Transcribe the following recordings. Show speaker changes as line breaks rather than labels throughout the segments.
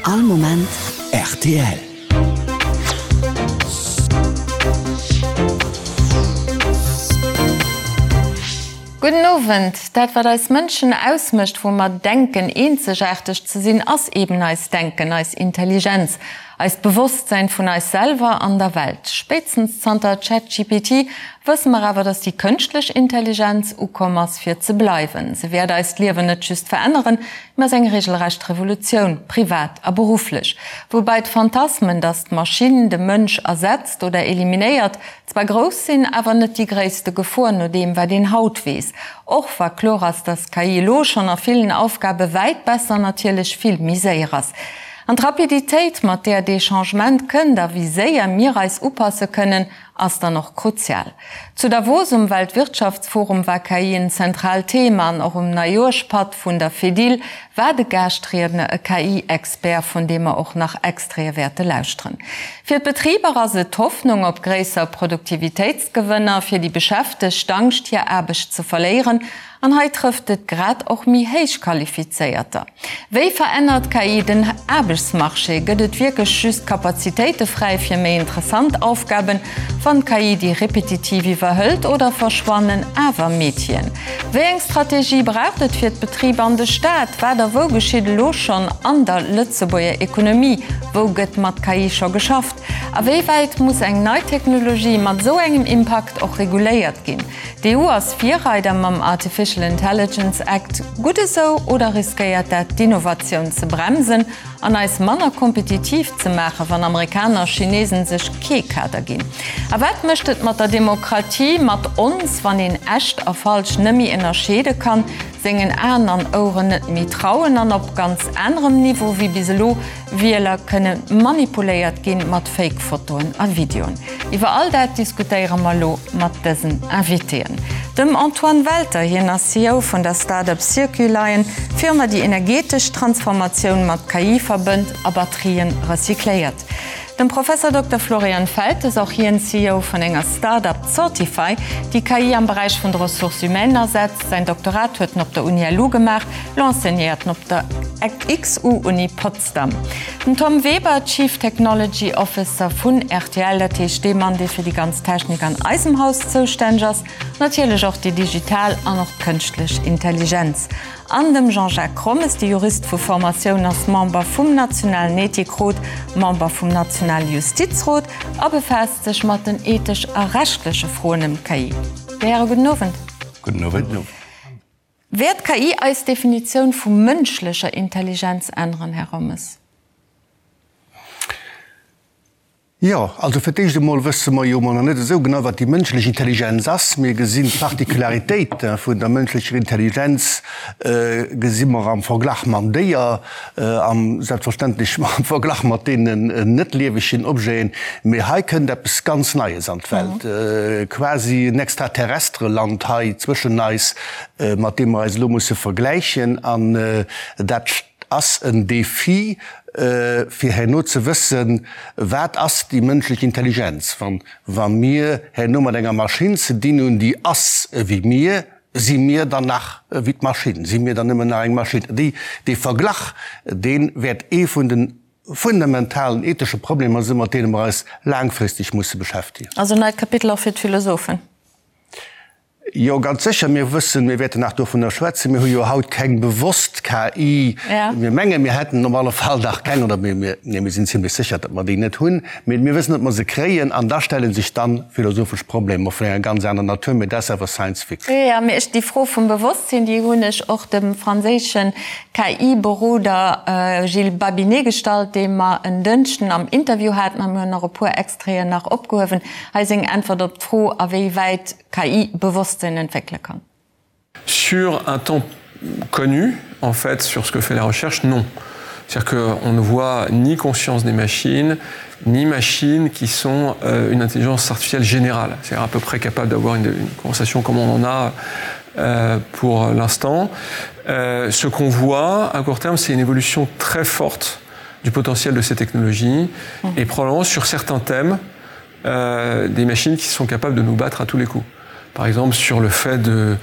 All Moment rtl.
Gudden Owend. Dat wat eis Mënschen ausmécht, wou mer denken eenzegaarteg ze sinn, ass eben eist Denken, eis Intelligenz, eist Bewosstsäin vun eis selwer an der Welt. Spéitstens zanter ChatGPT wësse mer awer, dass déi kënschtlech Intelligenz ukomm ass fir ze bleiwen. Se wäert eist Liewen net just veränneren, Mä ass eng regelrecht Revolutioun, privat a berufflech. Woubäi d'Phantasmen, datt d'Maschinn de Mënsch ersetzt oder eliminéiert, zwar grouss sinn, awer net déi gréisste Gefor, no deem wat een haut weess. Och wa kloer ass, datt d'KI elo schonn a villen Aufgabe wäit besser an natierlech vill méi séier ass. An d'Rapiditéit, mat där dee Changement kënnt a wéi séier mir eis upasse kënnen, ass dann och kruzial. Zu Davos um Weltwirtschaftsforum war KI en zentraalt Thema an och um Neijoerschpatt vun der Fedil war de Gaaschtriedner e KI-Expert, vun deem mer och nach Extraite wäerte lauschteren. Fir d'Betriber ass et d'Hoffnung op gréisser Produktivitéitsgewënner, fir déi Beschäftegt d'Angscht hir Aarbecht ze verléieren An hei trëfft et grad och méi héich Qualifizéierter. Wéi verännert KI den Aarbechtsmarché? Gëtt et wierklech just Kapazitéite fräi fir méi interessant Aufgaben, wann d'KI déi repetitiv iwwerhëlt, oder verschwannen awer Métieren? Wéi eng Strategie braucht et fir d'Betriber an de Staat? Wat a wou geschitt elo schonn an der Lëtzebuerger Ekonomie? Wou gëtt mat KI scho geschafft? A wéi wäit muss eng nei Technologie mat esou engem Impakt och reguléiert ginn? D'EU ass Virreider mam Artificial Intelligence Act. Gutt esou oder riskéiert dat d'Innovatioun ze bremsen an eis manner kompetitiv ze maachen, wann Amerikaner a Chinesen sech kee Kader ginn? A wat mécht et mat der Demokratie, mat ons, wann een echt a falsch nëmmi ënnerscheede kann, sengen Aen an Oueren net méi trauen an op ganz anerem Niveau wéi bis elo Wieler kënne manipuléiert ginn mat Fake-Fotoen a Videoen. Iwwer all dat diskutéiere mer elo mat dësen Invitéen. Dem Antoine Welter, hien ass CEO vun der Start-up Circulion, Firma déi energetesch Transformatioun mat KI verbënnt a Batterien recycléiert. Dem Professor Dokter Florian Feltes, och hien CEO vun enger Start-up Sortify, déi KI am Beräich vun de Ressources humaines asetzt. Säin Doktorat huet en op der Uni LU gemaach, lo enseignéiert en op der XU-Uni Potsdam. Den Tom Weber, Chief Technology Officer vun rtl, dat heescht dee Mann, dee fir déi ganz Technik an eisem Haus zoustänneg ass, natierlech och déi digital an och d'kënschtlech Intelligenz. An dem Jean-Jacques Rommes, de Jurist vu Formatioun, ass Member vum nationalen Ethikrot, Member vum nationale Justizrot a befaasst sech mat den ethesch a rechtleche Froen ëm d'KI. Dir Häre, gudden Owend.
Gudden Owend.
Wäert d'KI eis Definitioun vu mënschlecher Intelligenz änneren, Här Rommes?
Jo, also fir d'éischt emol wësse mer jo emol nach net esou genau, wat déi mënschlech Intelligenz ass. Mir gesinn d'Particularitéite vun der mënschlecher Intelligenz gesi mer am Verglach mam Déier, am selbstverständlech am Verglach mat deenen net liewegen Objeten. Mee hei kënnt eppes ganz Neies an d'Welt, quasi en extraterrestre Land hei zwëschen eis, mat deem mer eis elo musse vergläichen. An dat ass en Défi, fir herno ze wëssen, wat ass déi mënschlech Intelligenz. Wa mir herno mat enger Maschinn ze dinn hunn, déi ass ewéi mir, si mir dann nach ewéi d'Maschinn? Si mir dann nëmmen nach eng Maschinn? Dee Verglach, dee wäert ee vun de fundamentalen ethesche Problemer sinn, mat deene mer eis laangfristeg musse beschäftegen.
Also en neit Kapitel och fir d'Philosophen.
Jo, ganz sécher. Mir wëssen, mir wäerten nach dovunner schwätzen, mir hu jo haut keng bewosst KI. Mir mengen, mir hätten op alle Fall nach keng, oder mir, mir, nee, mir sinn zimlech sécher, datt mer déi net hunn. Mee mir wëssen, datt mer se kréien. An da stelle sech dann philosophesch Problemer vun enger ganz aner Natur. Mee dat ass awer Science Fiction.
Jo, mee ech, déi Fro vum Bewosstsinn, déi hunn ech och dem franséische KI-Beroder Gilles Babinet gestallt, dee mer en Dënschden am Interview haten. A mir hunn och e puer Extraiten nach opgehuewen. Hei seng Äntwert op d'Fro, a wéi wäit KI Bewosstsinn entwéckele kann.
Sur un temps connu, en fait, sur ce que fait la recherche, non. C'est-à-dire qu'on ne voit ni conscience des machines, ni machines qui sont euh, une intelligence artificielle générale, c'est-à-dire à peu près capable d'avoir une, une conversation comme on en a euh, pour l'instant. Euh, ce qu'on voit à court terme, c'est une évolution très forte du potentiel de ces technologies mmh. et probablement sur certains thèmes, euh, des machines qui sont capables de nous battre à tous les coups. Par exemple, sur le fait de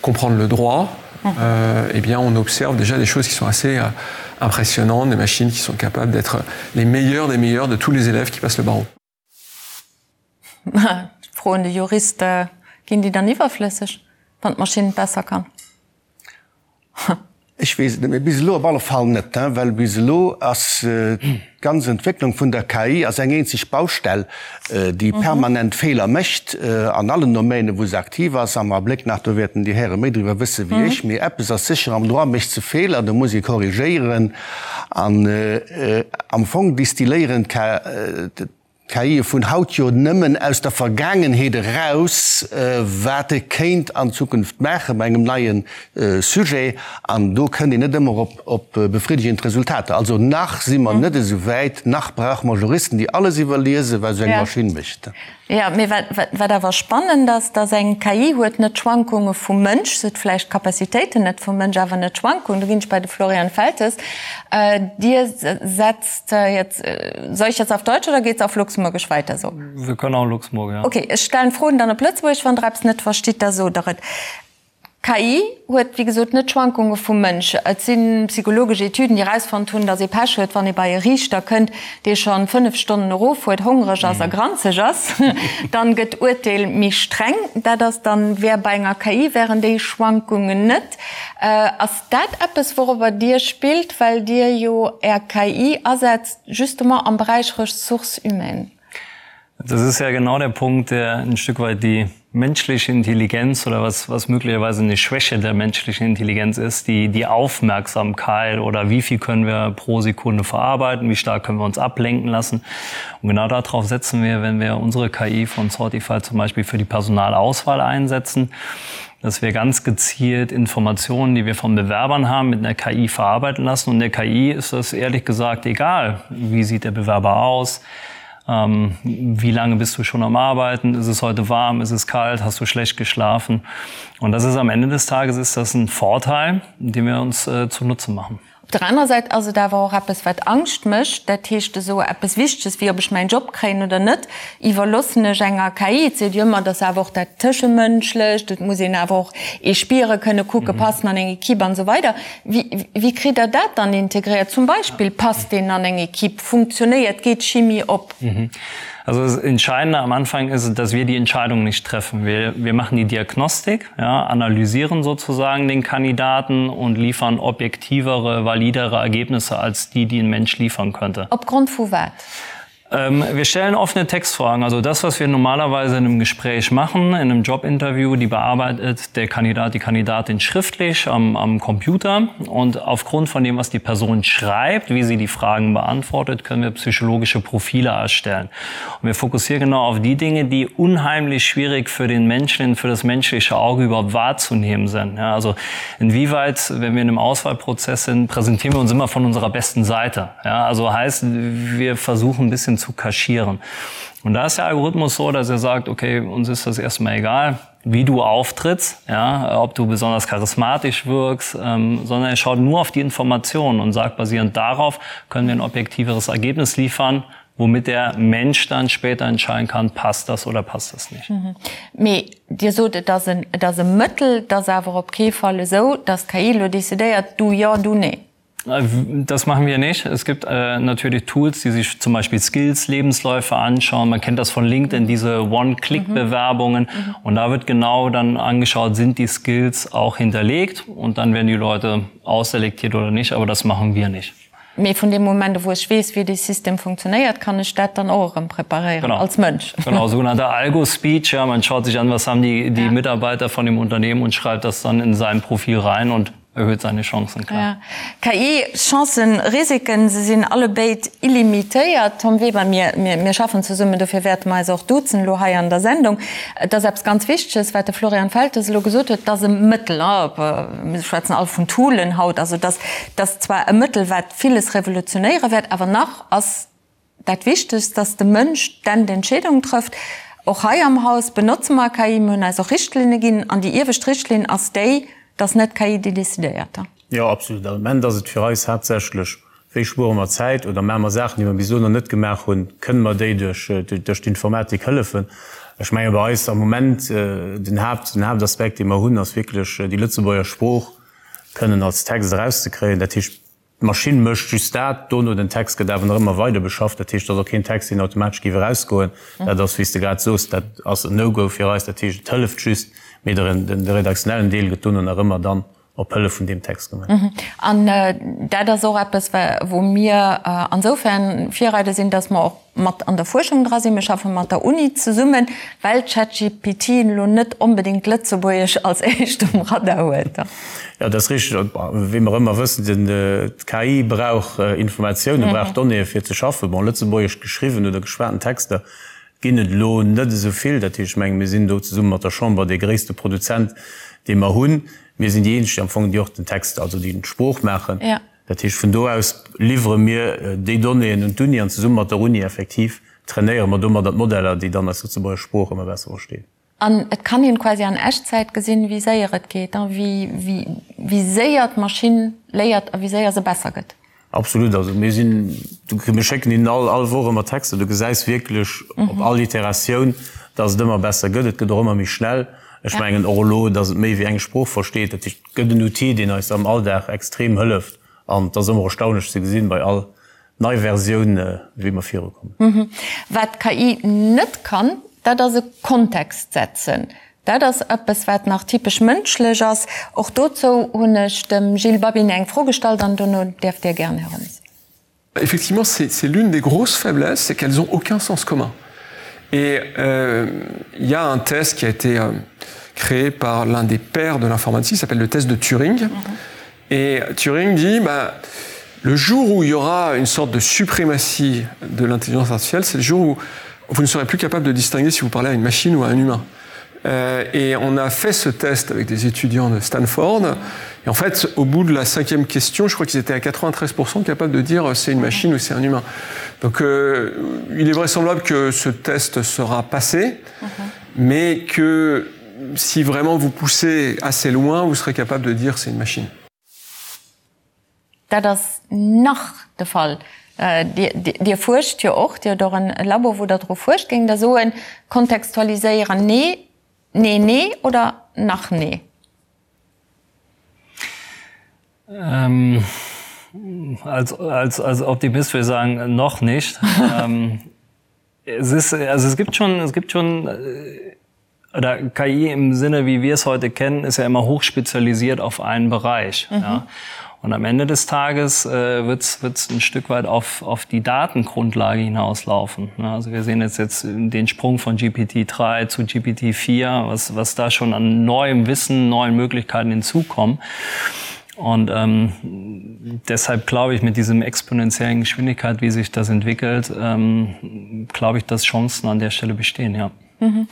comprendre le droit, mmh. euh, eh bien, on observe déjà des choses qui sont assez, euh, impressionnantes, des machines qui sont capables d'être les meilleures des meilleures de tous les élèves qui passent le barreau.
Fro un de Jurist, Ginn déi dann iwwerflësseg, wann d'Maschinn et besser kann?
Ech weess et net, mee bis elo op alle Fall net, well bis elo ass d'ganz Entwécklung vun der KI ass eng eenzeg Baustell, déi permanent Feeler mécht an allen Domänen, wou se aktiv ass. Am Abléck nach, do wäerten déi Häre méi driwwer wësse wéi ech, mee eppes ass sécher, am Droit mécht se Feeler, do muss ee korrigéieren an am Fong distilléieren d'KIe vun haut jo nëmmen aus der Vergaangenheet eraus, wat e kéint an Zukunft maache bei engem neie Sujet. An do kënnt een net ëmmer op befriddegend Resultater. Also nach si mer net esou wäit, nach brauche mer Juristen, déi alles iwwerliesen, wat esou eng Maschinn mécht.
Jo, mee wat awer spannend ass, dass eng KI huet net d'Schwankunge vum Mënsch, se huet vläicht d'Capacitéiten net vum Mënsch, awer net d'Schwankungen. Do ginn ech bei de Florian Feltes. Dir setzt jetzt, soll ich jetzt auf Deutsch oder geht's auf Luxemburgisch weiter so?
Wir können auch Luxemburg, ja.
Okay, ech stellen d'Froen dann op Lëtzebuergesch, wann Der eppes net verstitt, da sot Der et. KI huet wéi gesot net d'Schwankunge vum Mënsch. Et si psychologesch Etüden, déi erausfonnt hunn, datt ee Pech huet, wann ee bei e Riichter kënnt, dee scho 5 Stonnen erof huet, hongreg ass a granzeg ass. Dann gëtt d'Urteel méi streng. Dat ass dann, wär bei enger KI wären déi Schwankungen net. Ass dat eppes, wourobber Dir spillt, well Dir jo Är KI asetzt justement am Beräich Ressources humaines?
Das ist ja genau der Punkt, der ein Stück weit die menschliche Intelligenz oder was, was möglicherweise eine Schwäche der menschlichen Intelligenz ist, die, die Aufmerksamkeit oder wie viel können wir pro Sekunde verarbeiten, wie stark können wir uns ablenken lassen. Und genau darauf setzen wir, wenn wir unsere KI von Sortify zum Beispiel für die Personalauswahl einsetzen, dass wir ganz gezielt Informationen, die wir von Bewerbern haben, mit einer KI verarbeiten lassen. Und der KI ist das ehrlich gesagt egal, wie sieht der Bewerber aus, Ähm, wie lange bist du schon am Arbeiten? Ist es heute warm? Ist es kalt? Hast du schlecht geschlafen? Und das ist am Ende des Tages ist das ein Vorteil, den wir uns äh, zunutze machen.
Op der anerer Säit ass et awer och eppes, wat Angscht mécht. Dat heescht, esou eppes Wichteges, wéi ob ech mäin Job kréien oder net, iwwerloossen ech enger KI. Et seet jo ëmmer, et ass awer och dat Tëschemënschlecht, et muss een awer och ee spiere kënne, kucke, passen an eng Equipe an esou weider. Wéi, wéi kritt Der dat dann integréiert? Zum Beispill, passt deen an eng Equipe, funktionéiert, geet d'Chimie op?
Also das Entscheidende am Anfang ist, dass wir die Entscheidung nicht treffen. Wir, wir machen die Diagnostik, ja, analysieren sozusagen den Kandidaten und liefern objektivere, validere Ergebnisse als die, die ein Mensch liefern könnte.
Opgrond vu wat?
Ähm, wir stellen offene Textfragen. Also das, was wir normalerweise in einem Gespräch machen, in einem Jobinterview, die bearbeitet der Kandidat, die Kandidatin schriftlich am, am Computer. Und aufgrund von dem, was die Person schreibt, wie sie die Fragen beantwortet, können wir psychologische Profile erstellen. Und wir fokussieren genau auf die Dinge, die unheimlich schwierig für den Menschen, für das menschliche Auge überhaupt wahrzunehmen sind. Ja, also inwieweit, wenn wir in einem Auswahlprozess sind, präsentieren wir uns immer von unserer besten Seite. Ja, also heißt, wir versuchen ein bisschen zu kaschieren. Und da ist der Algorithmus so, dass er sagt, okay, uns ist das erstmal egal, wie du auftrittst, ja, ob du besonders charismatisch wirkst, ähm, sondern er schaut nur auf die Informationen und sagt, basierend darauf können wir ein objektiveres Ergebnis liefern, womit der Mensch dann später entscheiden kann, passt das oder passt das nicht.
Mhm. Mee Dir sot, et ass en, et ass e Mëttel, et ass awer op kee Fall esou, datt d'KI elo decidéiert, du jo, du nee.
Das machen wir nicht. Es gibt äh, natürlich Tools, die sich zum Beispiel Skills, Lebensläufe anschauen. Man kennt das von LinkedIn, diese One-Click-Bewerbungen. Mhm. Und da wird genau dann angeschaut, sind die Skills auch hinterlegt und dann werden die Leute ausselektiert oder nicht, aber das machen wir nicht.
Mee vun deem Moment u wou ech weess, wéi dee System funktionéiert, kann ech dat dann och erëm preparéieren als Mënsch.
Genau, sogenannter Algo-Speech, ja, man schaut sich an, was haben die, die ja. Mitarbeiter von dem Unternehmen und schreibt das dann in sein Profil rein und erhöht seine Chancen, klar.
Ja. KI, Chancen, Risiken, se sinn allebéid illimitéiert. Tom Weber, mir, mir, mir schaffen zesummen, dofir wäerte mer eis och duzen elo hei an der Sendung. Et ass eppes ganz Wichteges, wat de Florian Feltes elo gesot huet, et ass e Mëttel, mir schwätzen all vun Toolen haut, also dass, dass zwar e Mëttel, wat villes revolutionéiere wäert, awer nach ass dat Wichtegst, dass de Mënsch d'Endentscheedung trëfft. Och hei am Haus benotze mer KI, mir hunn eis och Richtlinne ginn, an déi iewescht Richtlinn ass déi, dass net d'KI déi decidéiert.
Jo, absolut. Am Ament ass et fir eis haaptsächlech, Wéi spuere mer Zäit oder maache mer Saachen, déi mer bis elo nach net gemaach hunn? Kënne mer déi duerch d'Informatik hëllefen? Ech menge bei eis am Moment den Haapt, den Haaptaspekt, dee mer hunn, ass wierklech déi Lëtzebuerger Sprooch kënnen als Text erauszekréien. Dat heescht. D'Maschinn mécht just dat, dono den Text gëtt awer nach ëmmer weider beschafft. Dat heescht, et ass och keen Text, deen automatesch géif erausgoen. Dat ass, wéi s de grad soos, dat ass en No-Go fir eis. Dat heescht, et hëlleft just, mee de redaktionellen Deel gëtt dono nach ëmmer dann op Hëllef vun deem Text
gemaach. An dat ass och eppes, wou mir ansoufern Virreider sinn, dass mer och mat an der Fuerschung dra sinn. Mir schaffe mat der Uni zesummen, well ChatGPT elo net onbedéngt Lëtzebuergesch als éischt um Radar huet.
Jo, dat ass richteg. Wéi mer ëmmer wëssen, d'KI brauch Informatiounen, brauch Donnéeë fir ze schaffen. Bon, lëtzebuergesch geschriwwen oder geschwaten Texter ginn et elo net esou vill. Dat heescht, ech menge mir sinn do zesumme mat der Chamber dee gréisste Produzent, dee mer hunn. Mir sinn déi eenzeg am Fong, déi och den Text, also déi d'Sprooch maachen. Dat heescht, vun do aus liwwere mir déi Donnéeën un d'Uni an zesumme mat der Uni effektiv trainéiere mer domadder d'Modeller, déi dann eis lëtzebuerger Sprooch ëmmer besser verstinn.
An et kann een quasi an Echtzäit gesinn, wéi séier et geet, wéi séier d'Maschinn léiert a wéi séier se besser gëtt.
Absolut. Also mir sinn, mir schécken hinnen all all Woch ëmmer Texter. Du gesäis wierklech op all Iteratioun, datt et ëmmer besser gëtt. Et gëtt och ëmmer méi schnell. Ech mengen och elo, datt et méi wéi eng Sprooch versteet. Dat heescht, et gëtt en Outil, deen eis am Alldag extrem hëlleft. An et ass ëmmer erstaunlech ze gesinn, bei all nei Versioun, wéi mer virukommen.
Wat d'KI net kann, dat ass e Kontext setzen. Dat ass eppes, wat nach typesch mënschlech ass. Och dozou hunn ech dem Gilles Babinet eng Fro gestallt an dono däerft Dir gären, Här Rommes.
Effectivement, c'est l'une des grosses faiblesses, c'est qu'elles ont aucun sens commun. Et euh, il y a un test qui a été euh, créé par l'un des pères de l'informatique, s'appelle le test de Turing. Mm -hmm. Et Turing dit bah, le jour où il y aura une sorte de suprématie de l'intelligence artificielle, c'est le jour où vous ne serez plus capable de distinguer si vous parlez à une machine ou à un humain. Euh, et on a fait ce test avec des étudiants de Stanford. Et en fait, au bout de la cinquième question, je crois qu'ils étaient à 93% capables de dire euh, c'est une machine ou c'est un humain. Donc euh, il est vraisemblable que ce test sera passé, mm -hmm. mais que si vraiment vous poussez assez loin, vous serez capable de dire c'est une machine.
Dat ass nach de Fall. Dir fuerscht jo och, Dir hutt och en Labo, wou Der dru fuerscht. Géingt Der soen, kontextualiséieren, nee, nee, nee oder nach nee?
Als, als, als Optimist würde ich sagen, noch nicht. Es ist, also es gibt schon, es gibt schon oder KI im Sinne, wie wir es heute kennen, ist ja immer hochspezialisiert auf einen Bereich. Mhm. Ja. Und am Ende des Tages äh, wird es ein Stück weit auf, auf die Datengrundlage hinauslaufen. Ja, also wir sehen jetzt, jetzt den Sprung von GPT-3 zu GPT-4, was, was da schon an neuem Wissen, neuen Möglichkeiten hinzukommen. Und ähm, deshalb glaube ich, mit diesem exponentiellen Geschwindigkeit, wie sich das entwickelt, ähm, glaube ich, dass Chancen an der Stelle bestehen. Ja.
Mhm.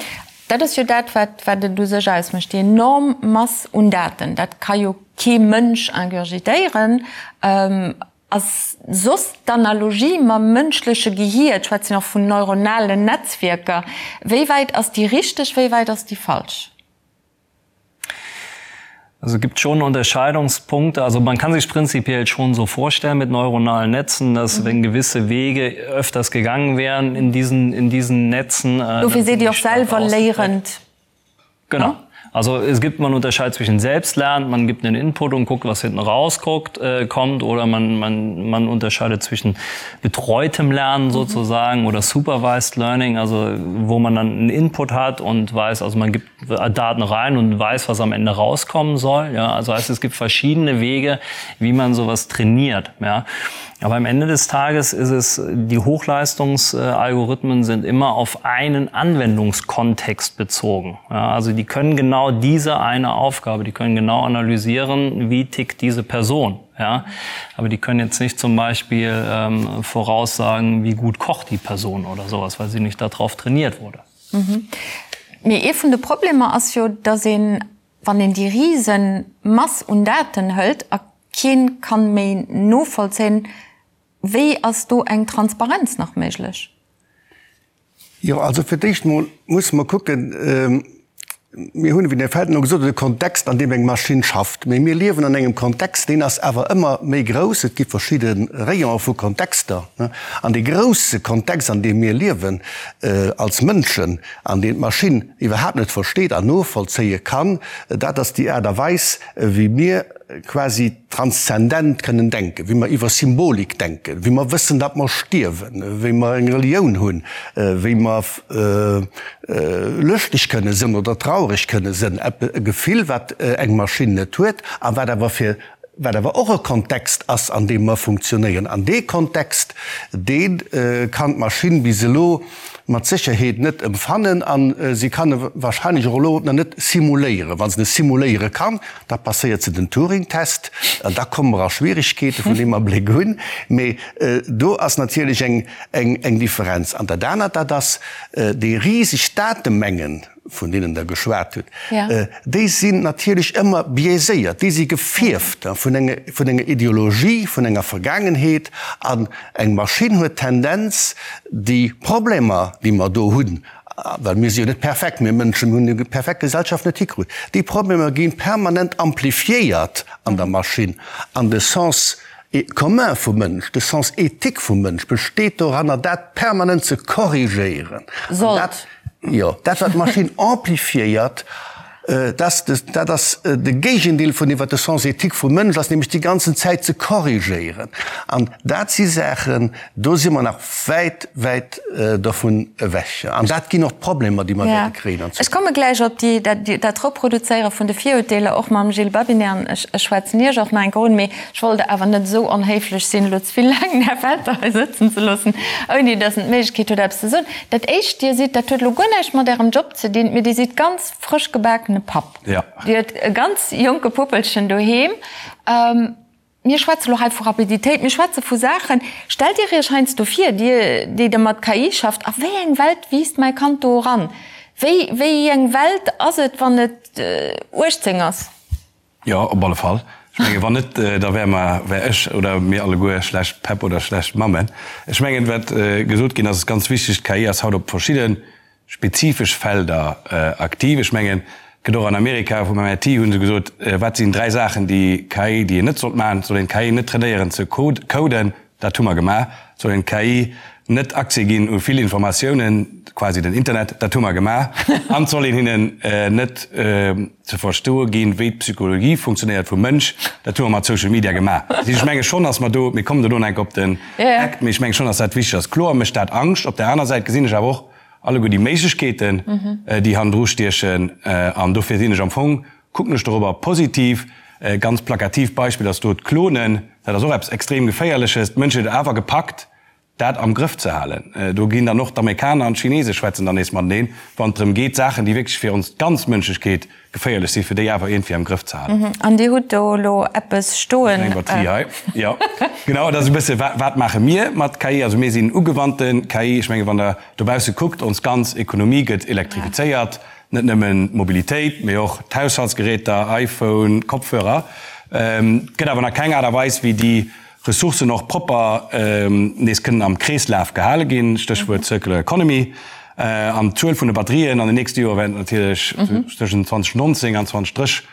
Dat ass jo dat, wat, wat et u sech ausmécht, déi enorm Mass un Daten. Dat ka jo kee Mënsch ingurgitéieren. Ähm, ass soss d'Analogie mam mënschleche Gehier, ech schwätzen och vun neuronalen Netzwierker, wéi wäit ass déi richteg, wéi wäit ass déi falsch?
Also gibt schon Unterscheidungspunkte. Also man kann sich prinzipiell schon so vorstellen mit neuronalen Netzen, dass mhm. wenn gewisse Wege öfters gegangen wären in diesen, in diesen Netzen.
Äh, Dofir sidd Dir och selwer léierend.
Genau. Also es gibt man unterscheidet zwischen Selbstlernen, man gibt einen Input und guckt, was hinten rausguckt, äh, kommt oder man, man, man unterscheidet zwischen betreutem Lernen sozusagen mhm. oder supervised Learning, also wo man dann einen Input hat und weiß, also man gibt Daten rein und weiß, was am Ende rauskommen soll. Ja, also heißt, es gibt verschiedene Wege, wie man sowas trainiert. Ja. Aber am Ende des Tages ist es, die Hochleistungsalgorithmen sind immer auf einen Anwendungskontext bezogen. Ja, also die können genau diese eine Aufgabe, die können genau analysieren, wie tickt diese Person. Ja, aber die können jetzt nicht zum Beispiel ähm, voraussagen, wie gut kocht die Person oder sowas, weil sie nicht darauf trainiert wurde.
Mee ee vun de Problemer ass jo, datt een, wann een déi rise Mass un Daten hëlt a kee kann méi novollzéien, wéi ass do eng Transparenz nach méiglech?
Jo, also fir d'éischt mol musse mer kucken, mir hunn, wéi den Här Felten elo gesot huet, e Kontext, an deem eng Maschinn schafft. Mee mir liewen an engem Kontext, deen ass awer ëmmer méi grouss. Et gi verschidde Rayonen vu Kontexter. An dee grousse Kontext, an deem mir liewen als Mënschen, an deen d'Maschinn iwwerhaapt net versteet an novollzéie kann, dat ass déi Aart a Weis, wéi mir. quasi transzendent kënnen denken, wéi mer iwwer Symbolik denken, wéi mer wëssen, datt mer stierwen, wéi mer eng Relioun hunn, wéi mer lëschteg kënne sënn oder traureg kënne sënn, e Gefill, wat eng Maschinn net huet a wat awer fir wat awer och e Kontext ass, an deem mer funktionéieren. An dee Kontext, dee kann d'Maschinn bis elo mat Sécherheet net emfannen a si kann e wahrscheinlech och elo nach net simuléieren. Wa se e simuléiere kann, da passéiert se den Turing-Test an da komme mer a Schwierigkeete vun deem Abléck un. Mee do ass natierlech eng Differenz. An dat anert, dat ass déi riseg Datemengen, vun deenen Der geschwat hutt, déi sinn natierlech ëmmer biaiséiert, déi si gefierft vun enger Ideologie, vun enger Vergaangenheet. An eng Maschinn huet d'Tendenz, déi Problemer, déi mer do hunn, well mir si jo net perfekt, mir Mënschen hunn déi perfekt Gesellschaft net hikrutt, déi Problemer gi permanent amplifiéiert an der Maschinn. An de Sens commun vum Mënsch, de Sens éthique vum Mënsch besteet doranner, dat permanent ze korrigéieren.
Sollt.
Jo, dat wat d'Maschinn amplifiéiert, dat ass de Géigendeel vun deem wat de Sens éthique vum Mënsch ass, nämlech déi ganzen Zäit ze korrigéieren. An dat si Saachen, do si mer nach wäit, wäit dovun ewech. An dat ginn och d'Problemer, déi mer wäerte kréien
an Zukunft. Ech komme gläich op déi, dat Reproduzéiere vun de Virurteeler, och mam Gilles Babinet, an ech schwätzen Iech och nach eng Kéier un. Mee ech wollt awer net esou onhéiflech sinn, elo ze vill laang den Här Welter hei sëtzen ze loossen, ouni datt en d'Méiglechkeet huet, eppes ze soen. Dat éischt, Dir sidd, dat huet elo guer näischt mat Ärem Job ze dinn, mee Dir sidd ganz frësch gebakene Papp. Dir hutt e ganz jonke Puppelchen doheem. Mir schwätze lo hei vu Rapiditéit, mir schwätze vu Saachen. Stellt Dir Iech heiansdo vir, Dir, déi Der mat KI schafft, a wéi eng Welt wiisst mäi Kand do eran? Wéi, wéi eng Welt ass et, wann et 18 ass?
Jo, op alle Fall. Ech mengen, wann net, da wäre mer, wär ech oder mir alleguer schlecht Päpp oder schlecht Mammen. Ech mengen, wat gesot ginn ass, ass ganz wichteg, D'KI ass haut op verschidde spezifesch Felder aktiv. Ech mengen, et gëtt och an Amerika, vum MIT hu se gesot, wat sinn dräi Saachen, déi KI, déi een net sollt maachen? Et soll een d'KI net trainéieren ze coden, dat hu mer gemaach. Et soll een d'KI net Accès ginn u vill Informatiounen, quasi den Internet, dat hu mer gemaach. An et soll een hinnen net ze verstoe ginn, wéi d'Psychologie funktionéiert vum Mënsch, dat hu mer mat Social Media gemaach. Dat heescht, ech menge schonn, datt mer do, mir kommen dono enk op den Act, mee ech menge schonn, datt dat wichteg ass. Kloer mécht dat Angscht. Op där aner Säit gesinn ech awer och alleguer déi Méiglechkeeten, déi hannendru stiechen. An dofir sinn ech am Fong, kucken ech dorobber positiv. E ganz plakatiivt Beispill ass do d'Klonen. Dat ass och eppes extrem Geféierleches. D'Mënschheet huet awer gepackt, dat am Grëff ze halen. Do ginn dann och d'Amerikaner an d'Chinese schwätzen dann nees mateneen, wann et drëm geet, Saachen, déi wierklech fir ons ganz Mënschlechkeet geféierlech sinn, fir déi awer iergendwéi am Grëff ze halen.
An Dir hutt do elo eppes stoen.
Eng Batterie hei, jo. Genau, dat ass e bësse, wat maache mir mat KI? Also mir sinn ugewannte KI. Ech menge wann Der dobausse kuckt, ons ganz Ekonomie gëtt elektrifizéiert, net nëmmen d'Mobilitéit, mee och d'Haushaltsgeräter, iPhone, Kopfhörer. Et gëtt awer nach keng Aart a Weis, wéi déi Ressourcen och propper nees kënnen am Kreeslaf gehale ginn, Stéchwuert Circular Economy. An d'Zuel vun de Batterien an den nächste Joer wäert natierlech tëschent 2019 an 2030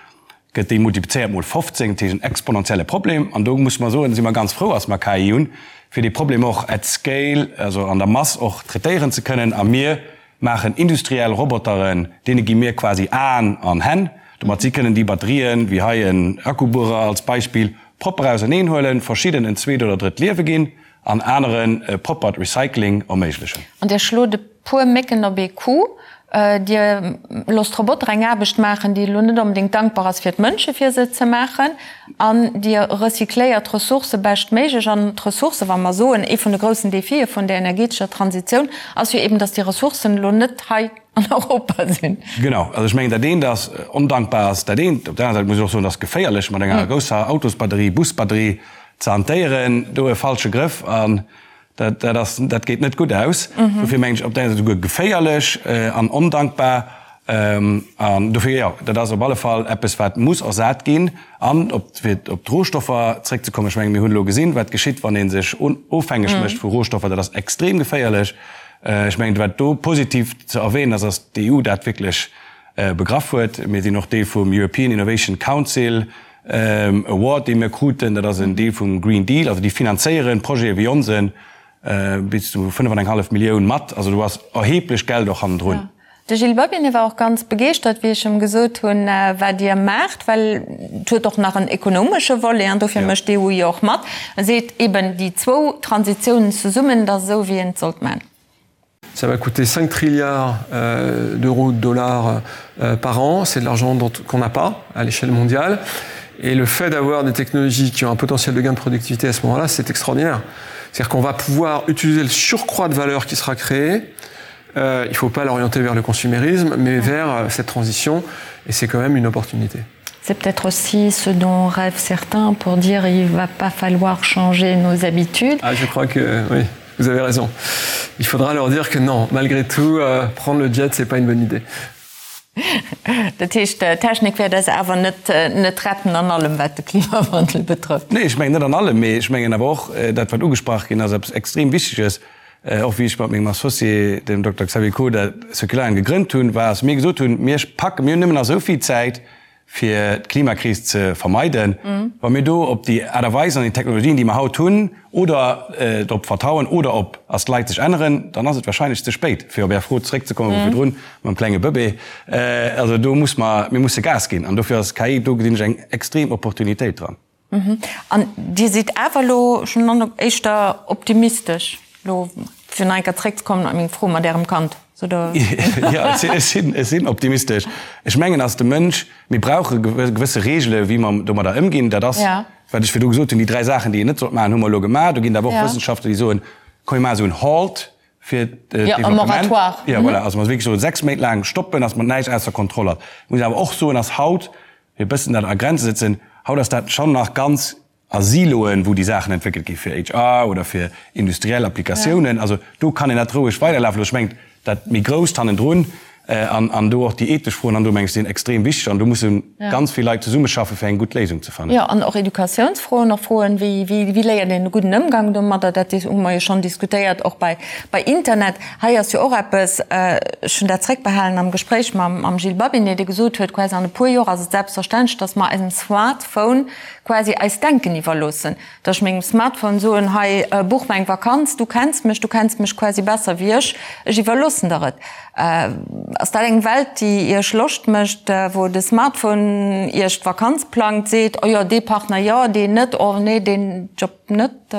gëtt déi multiplizéiert mol 15, dat heescht en exponentielle Problem. An do musse mer soen, si mer ganz frou, dass mer KI hunn, fir dee Problem och at scale, also an der Mass och traitéieren ze kënnen. A mir maachen industriell Roboteren, deene gi mir quasi Aen an Hänn, domat si kënnen déi Batterien, wéi hei en Akkubuerer als Beispill, propper auserneen huelen, verschidden en zweet oder drëtt Liewe ginn an aneren e proppert Recycling erméiglechen.
An Dir schlot e puer Mécken op ee Coup. Dir loosst Roboter eng Aarbecht maachen, déi elo net onbedéngt dankbar ass fir d'Mënsche fir se ze maachen. An Dir recycléiert d'Ressourcë beschtméiglech. An d'Ressourcë, wa mer soen, ee vun de groussen Defie vun der energetescher Transitioun ass jo eben, datt déi Ressourcen elo net hei an Europa sinn.
Genau. Also ech mengen, dat eent ass, ondankbar ass dat eent. Op der anerer Säit muss ech och soen, et ass geféierlech, mat enger grousser Autosbatterie, Busbatterie ze hantéieren. Do e falsche Grëff an dat, dat ass, dat geet net gutt aus. Dofir mengen ech, op der enger Säit esouguer geféierlech an ondankbar. An dofir, jo, dat ass op alle Fall eppes, wat muss ersat ginn. An op, fir op d'Rohstoffer zréckzekommen, ech mengen, mir hunn elo gesinn, wat geschitt, wann ee sech ofhängeg mécht vu Rohstoffer. Dat ass extrem geféierlech. Ech mengen, wat do positiv ze erwähnen ass, ass d'EU dat wierklech begraff huet. Mir sinn och Deel vum European Innovation Council Award, dee mir kruten. Dat ass en Deel vum Green Deal. Also déi finanzéieren Projete wéi onsen bis zu 5 an eng hallef Millioun mat. Also do ass erheblech Geld och hannendrun.
De Gilles Babinet war och ganz begeeschtert, wéi ech em gesot hunn, wat Dir maacht, well et huet och nach en ekonomesche Volet an dofir mécht d'EU jo och mat. E seet eben, déi zwou Transitiounen zesummen, dat ass esou, wéi een et sollt maachen.
Ça va coûter 5 trilliards euh, d'euros de dollars euh, par an, c'est de l'argent qu'on n'a pas à l'échelle mondiale. Et le fait d'avoir des technologies qui ont un potentiel de gain de productivité à ce moment-là, c'est extraordinaire. C'est-à-dire qu'on va pouvoir utiliser le surcroît de valeur qui sera créé. Euh, il ne faut pas l'orienter vers le consumérisme, mais vers euh, cette transition et c'est quand même une opportunité.
C'est peut-être aussi ce dont rêvent certains pour dire il va pas falloir changer nos habitudes.
Ah, je crois que oui, vous avez raison. Il faudra leur dire que non, malgré tout, euh, prendre le jet, c'est pas une bonne idée.
Dat heescht, d'Technik wäert eis awer net net retten an allem, wat de Klimawandel betrëfft.
Nee, ech mengen net an allem, mee ech mengen awer och dat, wat ugesprach ginn ass, eppes extrem Wichteges, och wéi ech mat mengem Associé, dem Dokter Xavier Koder, Circularium gegrënnt hunn, war, dass mir gesot hunn, Mir packen, mir hunn nëmmen nach esou vill Zäit, fir d'Klimakris ze vermeiden, wa mir do op déi Aart a Weis an déi Technologien, déi mer haut hunn, oder drop vertrauen oder op ass d'Leit sech änneren, dann ass et wahrscheinlech ze spéit, fir op Är Fro zeréckzekommen vu virdrun mam klenge Bëbee. Also do muss mer, mir musse Gas ginn an dofir ass KI, do gesinn ech eng extrem Opportunitéit dran.
An Dir sidd awer elo schonn éischter optimistesch, elo fir nach eng Kéier zréckzekommen op meng Fro mat Ärem Kand, oder?
Jo, ech sinn, ech sinn optimistesch. Ech mengen, ass de Mënsch, mir brauche gewësse Reegele wéi mer domadder ëmginn. Dat ass, wat ech virdu gesot hunn, déi 3 Saachen, déi een net sollt maachen, hu mer elo gemaach. Do ginn et awer och Wëssenschaftler, déi soen, komm mir maachen esou en Halt fir d'Developpement. Jo, voilà, also mer wierklech soen, 6 Méint laang stoppen, datt mer näischt ausser Kontroll hat. Ech muss awer och soen, ass haut, fir e bëssen dat a Grenze setzen, haut ass dat schonn nach ganz a Siloen, wou déi Saachen entwéckelt gi fir HR oder fir industriell Applikatiounen. Also do kann een dat roueg weiderlafe loossen. Ech mengen, dat méi Grousst hannendrun an an do och déi ethesch Froen hannendrun, meng ech, sinn extrem wichteg an do musse ganz vill Leit zesummeschaffen, fir eng gutt Léisung ze fannen.
Jo, an och Educatiounsfroen, och Froen, wéi wéi léiert een e gudden Ëmgang domadder, dat hu mer jo schonn diskutéiert, och bei bei Internet. Hei ass jo och eppes, ech hunn dat zréckbehalen am Gespréich mam Gilles Babinet, dee gesot huet, quasi an e puer Joer ass et selbstverständlech, datt mer eisem Smartphone quasi eist Denken iwwerloossen. Datt ech mengem Smartphone soen, hei buch mer eng Vakanz, du kenns mech, du kenns mech quasi besser wéi ech, ech iwwerloossen der et. Ass dat eng Welt, déi Iech Loscht mécht, wou de Smartphone Iech d'Vakanz plangt, seet, oh jo, dee Partner jo, deen net, oh nee, deen Job net?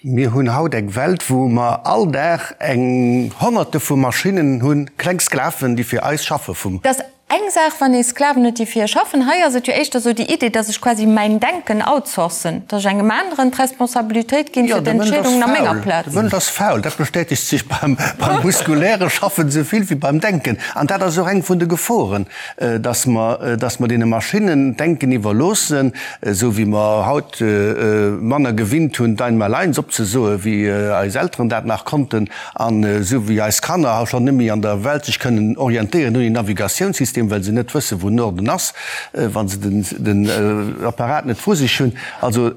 Mir hunn haut eng Welt, wou mer all Dag eng Honnerte vu Maschinnen hunn, kleng Sklaven, déi fir eis schaffe vum.
Et ass eng Saach, wann ee Sklaven huet, déi fir ee schaffen. Hei ass et jo éischter esou déi Idee, dass ech quasi mäin Denken outsourcen, dass ech engem aneren d'Responsabilitéit ginn fir d'Entscheedungen a menger Plaz.
De Mënsch ass faul. Dat bestätegt sech beim muskuläre Schaffen esou vill wéi beim Denken. An dat ass och eng vun de Geforen, dass mer, dass mer deene Maschinnen d'Denken iwwerloossen, esou wéi mer haut manner gewinnt hunn, d'Einmaleins opzesoe wéi eis Elteren dat nach konnten, an esou wéi eis Kanner haut schonn net méi an der Welt sech kënnen orientéieren ouni Navigatiounssystem, well se net wësse wou Norden ass, wa se den Apparat net vru sech hunn. Also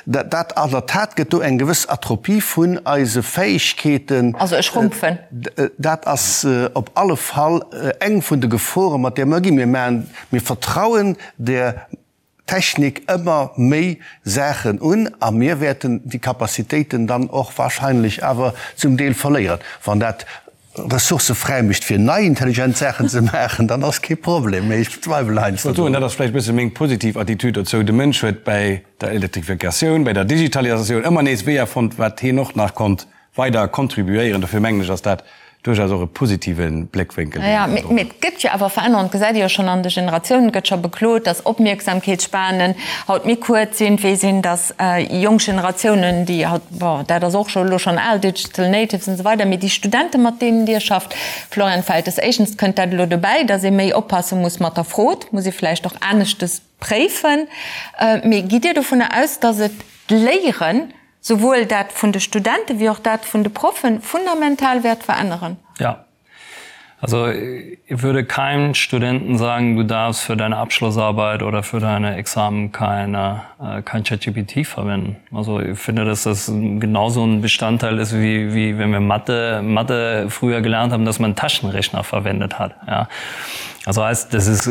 dat an der Tat gëtt do eng gewëss Atropie vun eise Fäegkeeten.
Also ech schrumpfen.
Dat ass op alle Fall eng vun de Geforen, mat där mer ginn. Mir maachen, mir vertrauen der Technik ëmmer méi Saachen un a mir wäerten déi Capacitéiten dann och wahrscheinlech awer zum Deel verléieren. Wann dat Ressourcë fräimécht fir nei intelligent Saachen ze maachen, dann ass kee Problem, mee ech bezweiwelen heiansdo
drun. Dat ass vläicht e bësse meng positiv Attitüd dozou. De Mënsch huet bäi der Elektrifikatioun, bäi der Digitalisatioun ëmmer nees Weeër fonnt, wat hien och nach konnt weider contribuéieren. Dofir mengen ech, ass dat duerchaus och e positive Bléckwénkel,
deen een do Mee et gëtt jo awer Verännerungen, dat gesäit ee jo schonn an de Generatiounen. Et gëtt scho beklot, datt Opmierksamkeetsspanen haut méi kuerz sinn, wéi sinn, datt jonk Generatiounen, déi haut, bon, dat ass och scho elo schonn al, Digital Natives an esou weider, mee déi Studenten, mat deenen Dir schafft, Florian Feltes, éischtens kënnt dat elo dobäi, datt ee méi oppasse muss mat der Frod, muss ee vläicht och aneschtes préifen. Mee gitt Dir dovunner aus, datt et d'Léieren, souwuel dat vun de Studenten wéi och dat vun de Proffen, fundamental wäert veränneren?
Ja. Also ich würde keinem Studenten sagen, du darfst für deine Abschlussarbeit oder für deine Examen keine, äh, kein ChatGPT verwenden. Also ich finde, dass das genauso ein Bestandteil ist, wie, wie wenn wir Mathe, Mathe früher gelernt haben, dass man Taschenrechner verwendet hat. Ja. Also heißt, das ist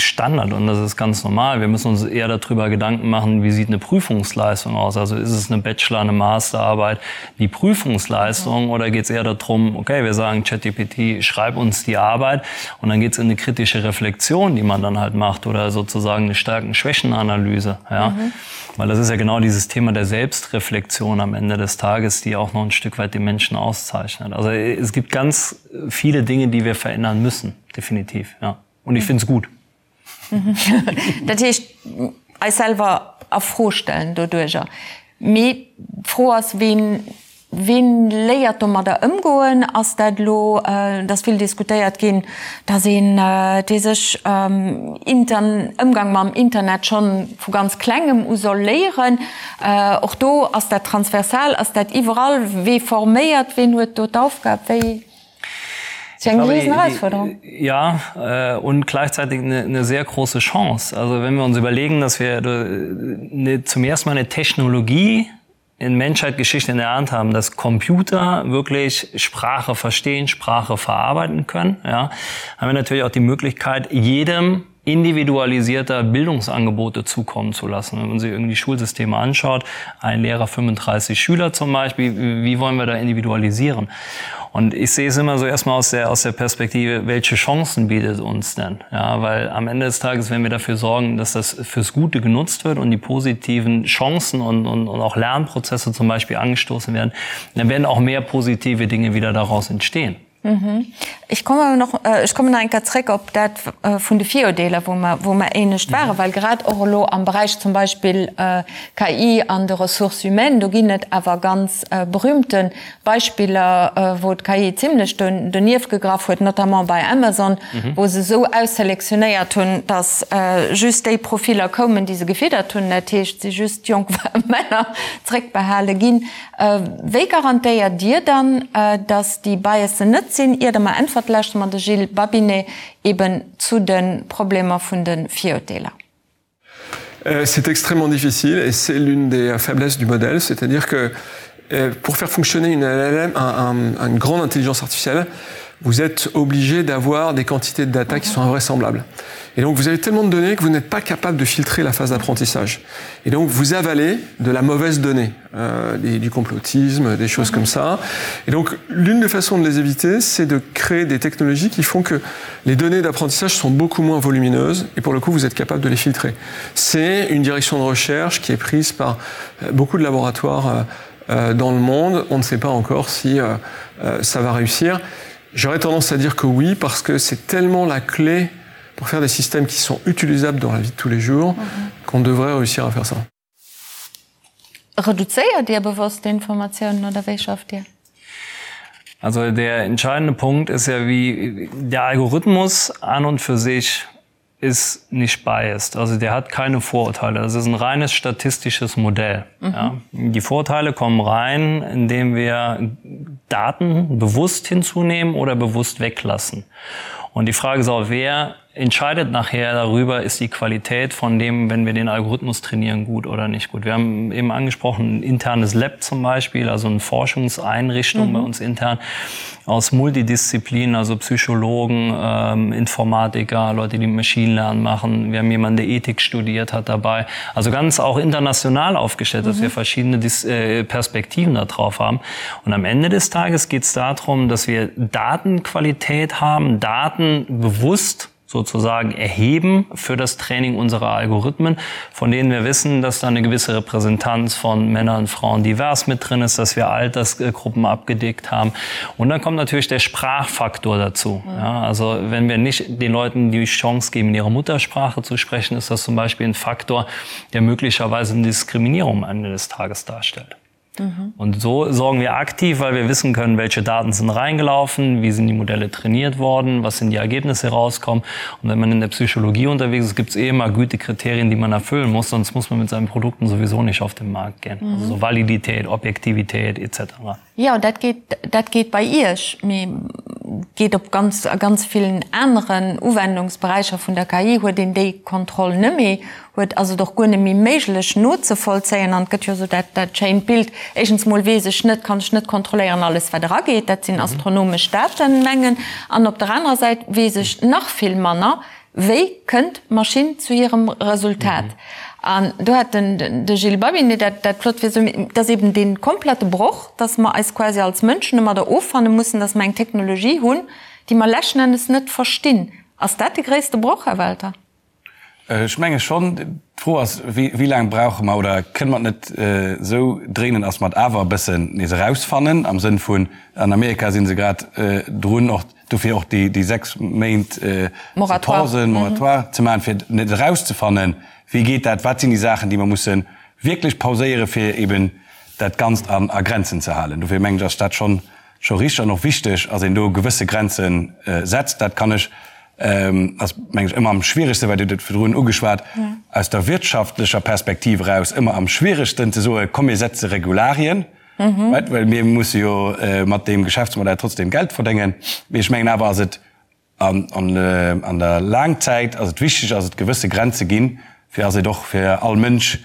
Standard und das ist ganz normal. Wir müssen uns eher darüber Gedanken machen, wie sieht eine Prüfungsleistung aus? Also ist es eine Bachelor, eine Masterarbeit, die Prüfungsleistung mhm. oder geht es eher darum, okay, wir sagen ChatGPT, schreib uns die Arbeit und dann geht es in eine kritische Reflexion, die man dann halt macht oder sozusagen eine starken Schwächenanalyse. Ja? Mhm. Weil das ist ja genau dieses Thema der Selbstreflexion am Ende des Tages, die auch noch ein Stück weit den Menschen auszeichnet. Also es gibt ganz viele Dinge, die wir verändern müssen, definitiv. Ja. Und ich finde es gut.
Dat heescht, eis selwer a Fro stellen doduercher. Mee d'Fro ass, ween, ween léiert domadder ëmgoen? Ass dat elo, et ass vill diskutéiert ginn, datt een, dee sech Intern, Ëmgang mam Internet schonn vu ganz Klengem u soll léieren. Och do, ass dat transversal, ass dat iwwerall? Wee forméiert, ween huet do d'Aufgab? Wéi?
Ist ja eine Riesenherausforderung. Ja, äh, und gleichzeitig eine, eine sehr große Chance. Also wenn wir uns überlegen, dass wir eine, zum ersten Mal eine Technologie in Menschheitsgeschichte in der Hand haben, dass Computer wirklich Sprache verstehen, Sprache verarbeiten können, ja, haben wir natürlich auch die Möglichkeit, jedem individualisierter Bildungsangebote zukommen zu lassen. Wenn man sich irgendwie Schulsysteme anschaut, ein Lehrer 35 Schüler zum Beispiel, wie wollen wir da individualisieren? Und ich sehe es immer so erstmal aus der, aus der Perspektive, welche Chancen bietet uns denn? Ja, weil am Ende des Tages, wenn wir dafür sorgen, dass das fürs Gute genutzt wird und die positiven Chancen und, und, und auch Lernprozesse zum Beispiel angestoßen werden, dann werden auch mehr positive Dinge wieder daraus entstehen.
Ech kommen awer nach, ech kommen nach eng Kéier zréck op dat vun de Virurdeeler, wou mer, wou mer éinescht waren, well grad och elo am Beräich zum Beispill KI an de Ressources humaines, do ginn et awer ganz berühmte Beispiller, wou d'KI zimlech donieft gegraff huet, notamment bei Amazon, wou se esou ausselektionéiert hunn, datt just déi Profiller koumen, déi se gefiddert hunn, dat heescht, si just jonk Männer zréckbehale ginn. Wéi garantéiert Dir dann, datt déi Biasen net sinn? Ier Der mer äntwert, lauschtere mer de Gilles Babinet eben zu de Problemer vun de Virurteeler.
C'est extrêmement difficile et c'est l'une des faiblesses du modèle, c'est-à-dire que pour faire fonctionner une LLM, un, un, une grande intelligence artificielle, vous êtes obligé d'avoir des quantités de data qui sont invraisemblables. Et donc vous avez tellement de données que vous n'êtes pas capable de filtrer la phase d'apprentissage. Et donc vous avalez de la mauvaise donnée, euh, des, du complotisme, des choses comme ça. Et donc l'une des façons de les éviter, c'est de créer des technologies qui font que les données d'apprentissage sont beaucoup moins volumineuses et pour le coup vous êtes capable de les filtrer. C'est une direction de recherche qui est prise par euh, beaucoup de laboratoires euh, euh, dans le monde. On ne sait pas encore si euh, euh, ça va réussir. J'aurais tendance à dire que oui, parce que c'est tellement la clé pour faire des systèmes qui sont utilisables dans la vie de tous les jours mm -hmm. qu'on devrait réussir à faire ça.
Reduzéiert Dir bewosst d'Informatiounen oder wéi schafft Dir?
Also der entscheidende Punkt ist ja wie der Algorithmus an und für sich ist nicht biased. Also der hat keine Vorurteile. Das ist ein reines statistisches Modell. Mhm. Ja. Die Vorteile kommen rein, indem wir Daten bewusst hinzunehmen oder bewusst weglassen. Und die Frage ist auch, wer entscheidet nachher darüber, ist die Qualität von dem, wenn wir den Algorithmus trainieren, gut oder nicht gut. Wir haben eben angesprochen, ein internes Lab zum Beispiel, also eine Forschungseinrichtung mhm. bei uns intern aus Multidisziplinen, also Psychologen, ähm, Informatiker, Leute, die Machine Lernen machen. Wir haben jemanden, der Ethik studiert hat dabei. Also ganz auch international aufgestellt, mhm. dass wir verschiedene Dis äh, Perspektiven darauf haben. Und am Ende des Tages geht es darum, dass wir Datenqualität haben, Daten bewusst sozusagen erheben für das Training unserer Algorithmen, von denen wir wissen, dass da eine gewisse Repräsentanz von Männern, Frauen divers mit drin ist, dass wir Altersgruppen abgedeckt haben. Und dann kommt natürlich der Sprachfaktor dazu. Mhm. Ja, also wenn wir nicht den Leuten die Chance geben, in ihrer Muttersprache zu sprechen, ist das zum Beispiel ein Faktor, der möglicherweise eine Diskriminierung am Ende des Tages darstellt. Mhm. Und so sorgen wir aktiv, weil wir wissen können, welche Daten sind reingelaufen, wie sind die Modelle trainiert worden, was sind die Ergebnisse rauskommen. Und wenn man in der Psychologie unterwegs ist, gibt es eh immer Gütekriterien, die man erfüllen muss, sonst muss man mit seinen Produkten sowieso nicht auf den Markt gehen. Mhm. Also so Validität, Objektivität etc.
Jo, dat geet, dat geet bei Iech, mee. geet op ganz, a ganz villen aneren Uwendungsberäicher vun der KI huet een déi Kontroll net méi, huet, ass et och guer net méi méiglech nozevollzéien. An et gëtt jo esou dat, dat schéint Bild, éischtens mol weess ech net, kann ech net kontrolléieren alles wat erageet, dat sinn astronomesch Datenmengen, an op der anerer Säit weess ech nach vill manner, wéi kënnt d'Maschinn zu hirem Resultat. An do hat den de Gilles Babinet dat, dat flott fir esou, et ass eben dee komplette Broch, dass mer eis quasi als Mënschen domadder offanne mussen, dass mer eng Technologie hunn, déi mer leschten Endes net verstinn. Ass dat de gréisste Broch, Här Welter?
Ech menge schonn. D'Fro ass, wéi laang brauche mer oder kënne mer et net esou dréinen, dass mer et awer e bëssen nees erausfannen am Sënn vun, an Amerika si se grad drun, och dofir och déi 6 Méint ze pausen, Moratoire ze maachen, fir net erauszefannen, wéi geet dat, wat sinn déi Saachen, déi mer musse wierklech pauséieren, fir eben dat Ganzt a Grenzen ze halen. Dofir mengen ech, ass dat schonn scho richteg an och wichteg, ass een do gewësse Grenze setzt. Dat kann ech, ass meng ech ëmmer am schwieregsten, well Dir hutt et virdrun ugeschwat, aus der wirtschaftlecher Perspektiv eraus ëmmer am schwieregsten ze soen, komm mir setze Regularien, right, well mir musse jo mat deem Geschäftsmodell trotzdem Geld verdéngen. Mee ech mengen awer ass et an der Laangzäit ass et wichteg, ass et gewësse Grenze ginn, fir ass et och fir all Mënsch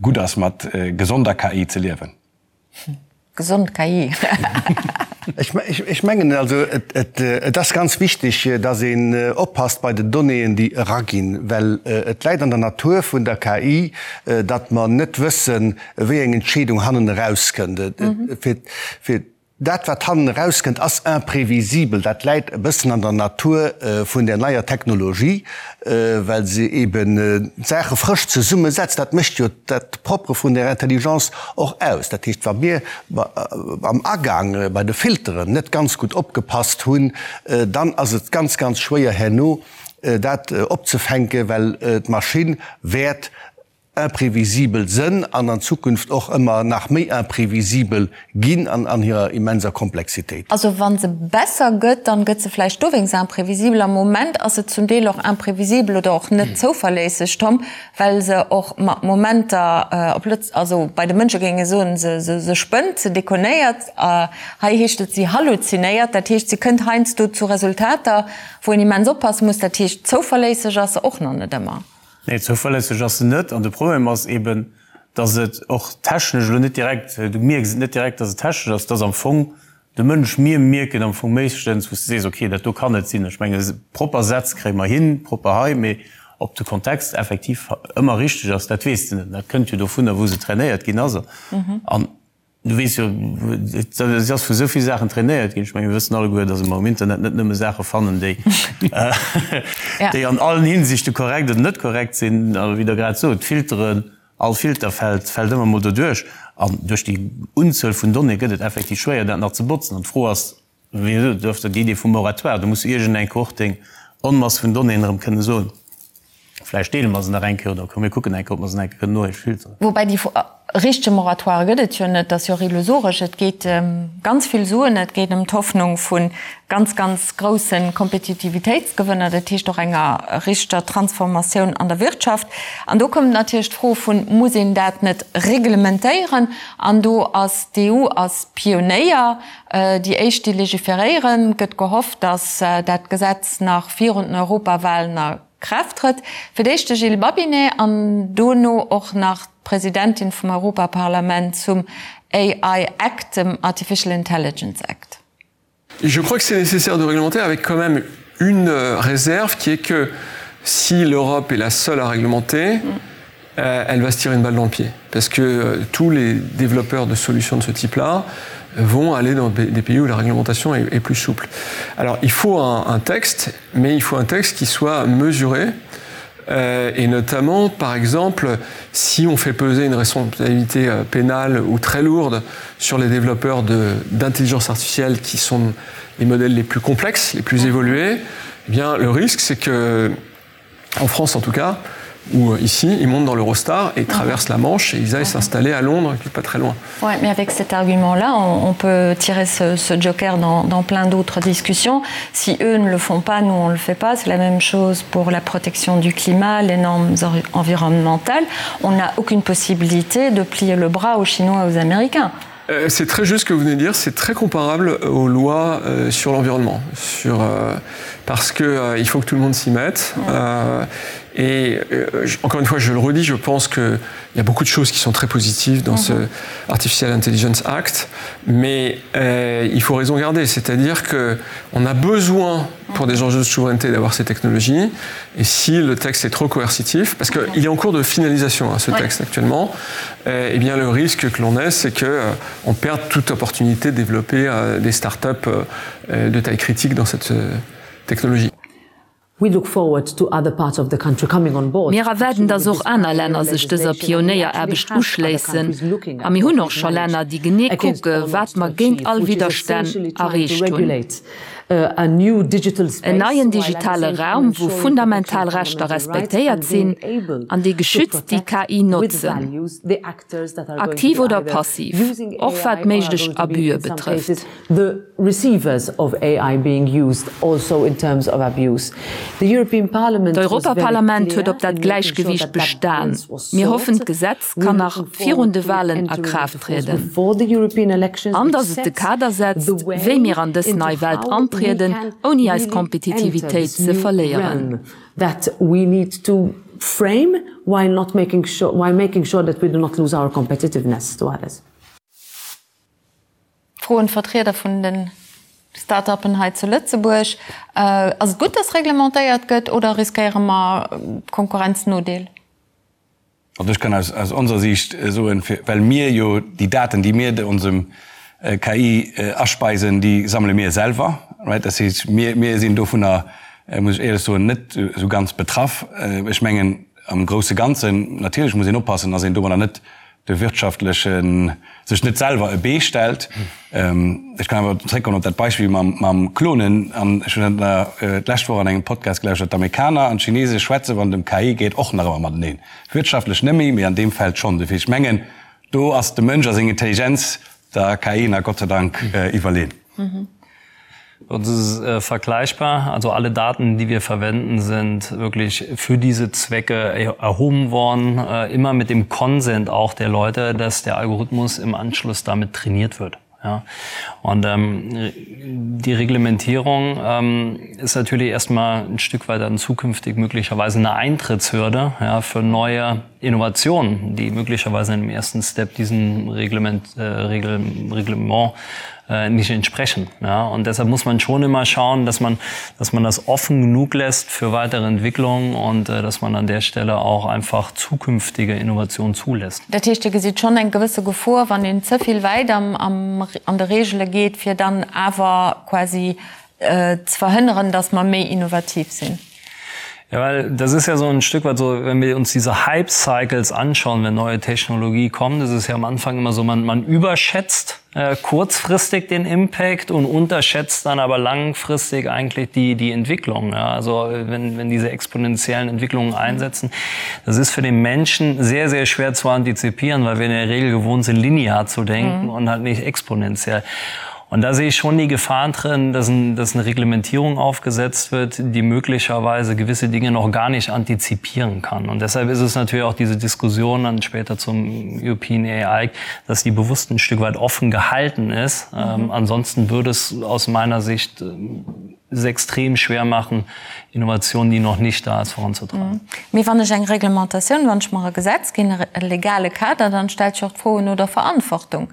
gutt ass mat gesonder KI ze liewen.
Gesond KI.
Ech mengen also, et ass ganz wichteg, dass een oppasst bei den Donnéeën, déi eraginn, well et läit an der Natur vun der KI, datt mer net wëssen, wéi eng Entscheedung hannen erauskënnt. Fir dat, wat hannen erauskënnt, ass imprévisibel. Dat läit e bëssen an der Natur vun där neier Technologie. well se eben d'Saache frësch zesummesetzt. Dat mécht jo dat Propre vun der Intelligence och aus. Dat heescht, wa mir am Agang bei de Filteren net ganz gutt opgepasst hunn, dann ass et ganz, ganz schwéier herno dat opzefänken, well d'Maschinn wäert imprévisibel sënn an an Zukunft och ëmmer nach méi imprévisibel ginn an an hirer immenser Komplexitéit.
Also wa se besser gëtt, dann gëtt se vläicht dowéinst imprévisibel. Am Moment ass se zum Deel och imprévisibel oder och net zouverléisseg, Tom, well se och mat Momenter op Lëtz-, also bei de Mënsche géing ee soen, se, se, se spënnt, se déconnéiert. Hei heescht et, si halluzinéiert. Dat heescht, se kënnt heiansdo zu Resultater, wou een immens oppasse muss. Dat heescht, zouverléisseg ass se och nach net ëmmer.
Nee, zouverlässeg ass se net. An de Problem ass eben, dass et och technesch elo net direkt, du mierks et net direkt, dass et technesch ass, dass am Fong de Mënsch, mir mierken am Fong meeschtens, wou s de sees, okay, dat do kann net sinn. Ech menge propper Sätz kréie mer hin, propper hei, mee ob de Kontext effektiv ëmmer richteg ass, dat weess de net. Dat kënnt jo dovunner, wou se trainéiert ginn ass. An Du weess jo, si ass vu esou vill Saachen trainéiert ginn. Ech menge mir wëssen alleguer, datt mer um Internet net nëmme Saache fannen, déi déi an allen Hinsichte korrekt oder net korrekt sinn. A wéi Der grad sot, d'Filteren, all Filter fält fält ëmmer mol doduerch. An duerch déi Unzuel vun Donnéeë gëtt et effektiv schwéier, dat nach ze botzen. An d'Fro ass, wéi gesot, du hues déi Idee vum Moratoire, do muss du iergendeng Kohort deng Onmass vun Donnéeën erëm kënne soen, Vläicht deele mer se nach eng Kéier oder komm mir kucken eng Kéier, ob mer se nach eng Kéier kënnen nohéich filteren.
Woubäi déi richtege Moratoire gëtt et jo net, dat ass jo och illusoresch. Et geet ëm ganz vill Suen, et geet ëm d'Hoffnung vu ganz, ganz grousse Kompetitivitéitsgewënner, dat heescht och enger richteger Transformatioun an der Wirtschaft. An do kommt natierlech d'Fro vun, Muss een dat net reglementéieren? An do ass d'EU ass Pionéier, déi éischt déi legiferéieren. Et gëtt gehofft, datt dat Gesetz nach virun den Europawahlen a Kraaft trëtt. Fir d'éischt de Gilles Babinet an dono och nach d'Presidentin vum Europaparlament zum AI Act, dem Artificial Intelligence Act.
Je crois que c'est nécessaire de réglementer avec quand même une réserve qui est que si l'Europe est la seule à réglementer, mm. euh, elle va se tirer une balle dans le pied parce que euh, tous les développeurs de solutions de ce type là vont aller dans des pays où la réglementation est, est plus souple. Alors il faut un, un texte, mais il faut un texte qui soit mesuré euh, et notamment par exemple si on fait peser une responsabilité euh, pénale ou très lourde sur les développeurs d'intelligence artificielle qui sont les modèles les plus complexes, les plus évolués, eh bien le risque c'est que en France en tout cas, ou euh, ici, ils montent dans l'Eurostar et traversent la Manche et ils aillent s'installer à Londres, qui n'est pas très loin.
Ouais, mais avec cet argument-là, on, on peut tirer ce, ce joker dans, dans plein d'autres discussions. Si eux ne le font pas, nous on ne le fait pas. C'est la même chose pour la protection du climat, les normes environnementales. On n'a aucune possibilité de plier le bras aux Chinois et aux Américains.
Euh, c'est très juste ce que vous venez de dire, c'est très comparable aux lois euh, sur l'environnement sur euh, parce que euh, il faut que tout le monde s'y mette ouais. euh, et euh, encore une fois je le redis je pense que il y a beaucoup de choses qui sont très positives dans mm -hmm. ce Artificial Intelligence Act mais euh, il faut raison garder c'est à dire que on a besoin pour des enjeux de souveraineté d'avoir ces technologies et si le texte est trop coercitif parce qu'il mm -hmm. est en cours de finalisation hein, ce ouais. texte actuellement euh, eh bien le risque que l'on ait c'est que euh, on perd toute opportunité de développer euh, des start up euh, euh, de taille critique dans cette euh, technologie.
Mir erwaarden, dass och aner Länner sech dëser Pionéieraarbecht uschléissen. A mir hunn och scho Länner, déi genee kucke wat mer géint all Widderstänn erreecht hunn. En neien digitale Raum, wou fundamental Rechter respektéiert sinn an déi geschützt déi KI notzen, aktiv oder passiv, och wat méiglech Abüe betrëfft.
the receivers of AI being used also in terms of abuse. The European Parliament was very clear
D'Europaparlament huet op dat Gläichgewiicht bestan. Mir hoffen, d'Gesetz kann nach virun de Walen a Kraaft trieden. An datt et de Kader setzt, wéi mir an dës nei Welt antrieden, ouni eis Kompetitivitéit ze verléieren.
that we need to frame while not making sure, while making sure that we do not lose our competitiveness to others.
Fro un d'Vertrieder vun de Start-uppen hei zu Lëtzebuerg, Ass et gutt, dass reglementéiert gëtt oder riskéiere mer Konkurrenznodeel?
Also ech kann aus onser Siicht soen, well mir jo déi Daten, déi mir onsem KI aspeisen, déi sammele mir selwer, right? Dat heescht, mir sinn dovunner, muss ech éierlech soen, net esou ganz betraff. Ech mengen am grousse Ganzen, natierlech muss een oppassen, dass een domadder net de wirtschaftlechen, sech net selwer e Bee stellt. Ech kann awer zréckkommen op dat Beispill mam Klonen. An ech hunn dat d'lescht Woch an engem Podcast gelauschtert, D'Amerikaner an d'Chinese schwätze wann et ëm KI geet och nach ëmmer mateneen. Wirtschaftlech net méi, mee an deem Feld schonn. Dofir, ech mengen, do ass de Mënsch a seng Intelligenz der KI nach Gott sei Dank iwwerleen.
Das ist äh, vergleichbar. Also alle Daten, die wir verwenden, sind wirklich für diese Zwecke erhoben worden, äh, immer mit dem Konsent auch der Leute, dass der Algorithmus im Anschluss damit trainiert wird. Ja. Und ähm, die Reglementierung ähm, ist natürlich erstmal ein Stück weit dann zukünftig möglicherweise eine Eintrittshürde ja, für neue Innovationen, die möglicherweise im ersten Step diesem Reglement, äh, Regel, Reglement äh, nicht entsprechen. Ja? Und deshalb muss man schon immer schauen, dass man, dass man das offen genug lässt für weitere Entwicklungen und äh, dass man an der Stelle auch einfach zukünftige Innovationen zulässt.
Dat heescht, Dir gesitt schonn eng gewësse Gefor, wann een ze vill wäit am, am, an de Regele geet, fir dann awer quasi ze verhënneren, dass mer méi innovativ sinn.
Ja, weil das ist ja so ein Stück weit so, wenn wir uns diese Hype-Cycles anschauen, wenn neue Technologie kommt, ist es ja am Anfang immer so, man, man überschätzt äh, kurzfristig den Impact und unterschätzt dann aber langfristig eigentlich die, die Entwicklung. Ja, also wenn, wenn diese exponentiellen Entwicklungen einsetzen, das ist für den Menschen sehr, sehr schwer zu antizipieren, weil wir in der Regel gewohnt sind, linear zu denken mhm. und halt nicht exponentiell. Und da sehe ich schon die Gefahr drin, dass, ein, dass eine Reglementierung aufgesetzt wird, die möglicherweise gewisse Dinge noch gar nicht antizipieren kann. Und deshalb ist es natürlich auch diese Diskussion dann später zum European AI, dass die bewusst ein Stück weit offen gehalten ist. Mhm. Ähm, ansonsten würde es aus meiner Sicht es extrem schwer machen, Innovationen, die noch nicht da ist, voranzutreiben.
Mhm. Mee wann ech eng Reglementatioun, wann ech mer e Gesetz ginn, e legale Kader, dann stellt sech och d'Fro no der Verantwortung.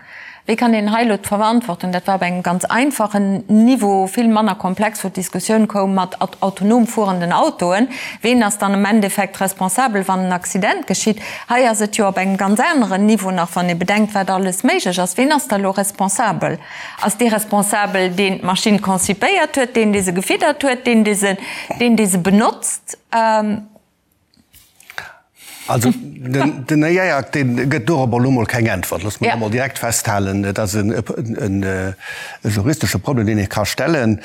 Wéi kann een hei elo d'Verantwortung, dat war op engem ganz einfachen Niveau, vill manner komplex, wou d'Diskussioun koum mat autonom fuerenden Autoen, ween ass dann am Endeffekt responsabel, wann en Accident geschitt? Hei ass et jo op engem ganz aneren Niveau nach, wann ee bedenkt, wat alles méiglech ass. Ween ass da elo responsabel? Ass dee responsabel, deen d'Maschinn concipéiert huet, deen, dee se gefiddert huet, deen, dee se, deen, dee se benotzt?
Also den AI Act, dee gëtt dorobber elo mol keng Äntwert. Loosse mer dat emol direkt festhalen. Et ass e juristesche Problem, deen ee ka stellen.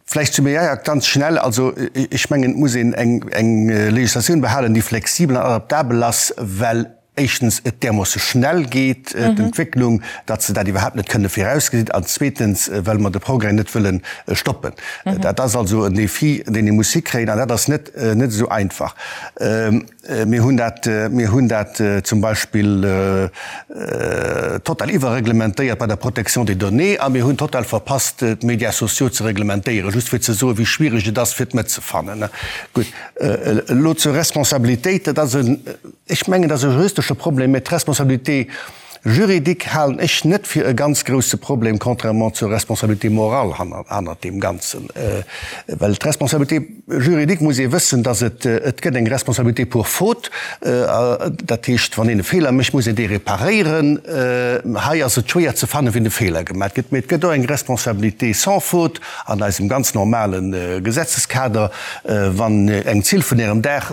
Vläicht zum AI Act ganz schnell. Also ech mengen, et muss een eng Legislatioun behalen, déi flexibel an adaptabel ass, well. Éischtens et därmoosse schnell geet, d'Entwécklung, datt se dat iwwerhaapt net kënne virausgesinn, an zweetens, well mer de Progrès net wëlle stoppen. Dat ass also en Défi, deen ee muss hikréien, an dat ass net, net esou einfach. Mir hunn dat, mir hunn dat zum Beispill total iwwerreglementéiert bei der Protection des données a mir hunn total verpasst, d'Médias sociaux ze reglementéieren, just fir ze soen, wéi schwierig et ass, fir d'Mëtt ze fannen. Gutt, elo zur Responsabilitéit, Dat ass en. Ech mengen, dat ass e juristesche Problem, mä d'Responsabilité juridique halen ech net fir e ganz grouse Problem, contrairement zur Responsabilité morale hannert deem Ganzen. Well d'Responsabilité juridique muss ee wëssen, dass et, et gëtt eng Responsabilité pour faute, dat heescht, wann een e Feeler mécht, muss een dee reparéieren. Hei ass et schwéier ze fannen, wien de Feeler gemaach gëtt. Mä et gëtt och eng Responsabilité sans faute an eisem ganz normale Gesetzeskader. Wann eng Zill vun Ärem Daach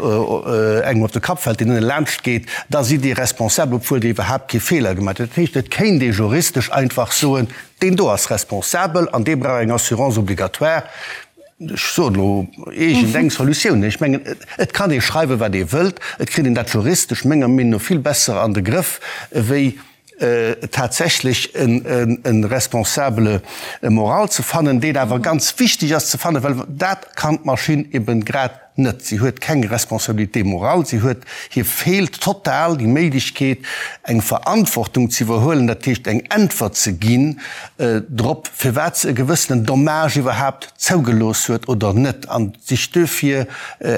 engem op de Kapp fält, deen ënne laanscht geet, da sidd Dir responsabel, obwuel Dir iwwerhaapt kee Feeler gemaach hutt. Dat heescht, et kéint ee juristesch einfach soen, deen do ass responsabel an dee brauch eng Assurance obligatoire. Ech soen elo iergendeng Solutioun. Ech mengen, et kann ee schreiwen, wat ee wëllt, et kritt een dat juristesch menger Meenung no vill besser an de Grëff wéi tatsächlech e Responsable moral ze fannen, deen awer ganz wichteg ass ze fannen, well dat kann d'Maschinn eben grad net. Si huet keng Responsabilité morale, si huet, hir feelt total déi Méiglechkeet, eng Verantwortung ze iwwerhuelen, dat heescht eng Äntwert ze ginn drop, firwat se e gewëssenen Dommage iwwerhaapt zougelooss huet oder net, an sech duerfir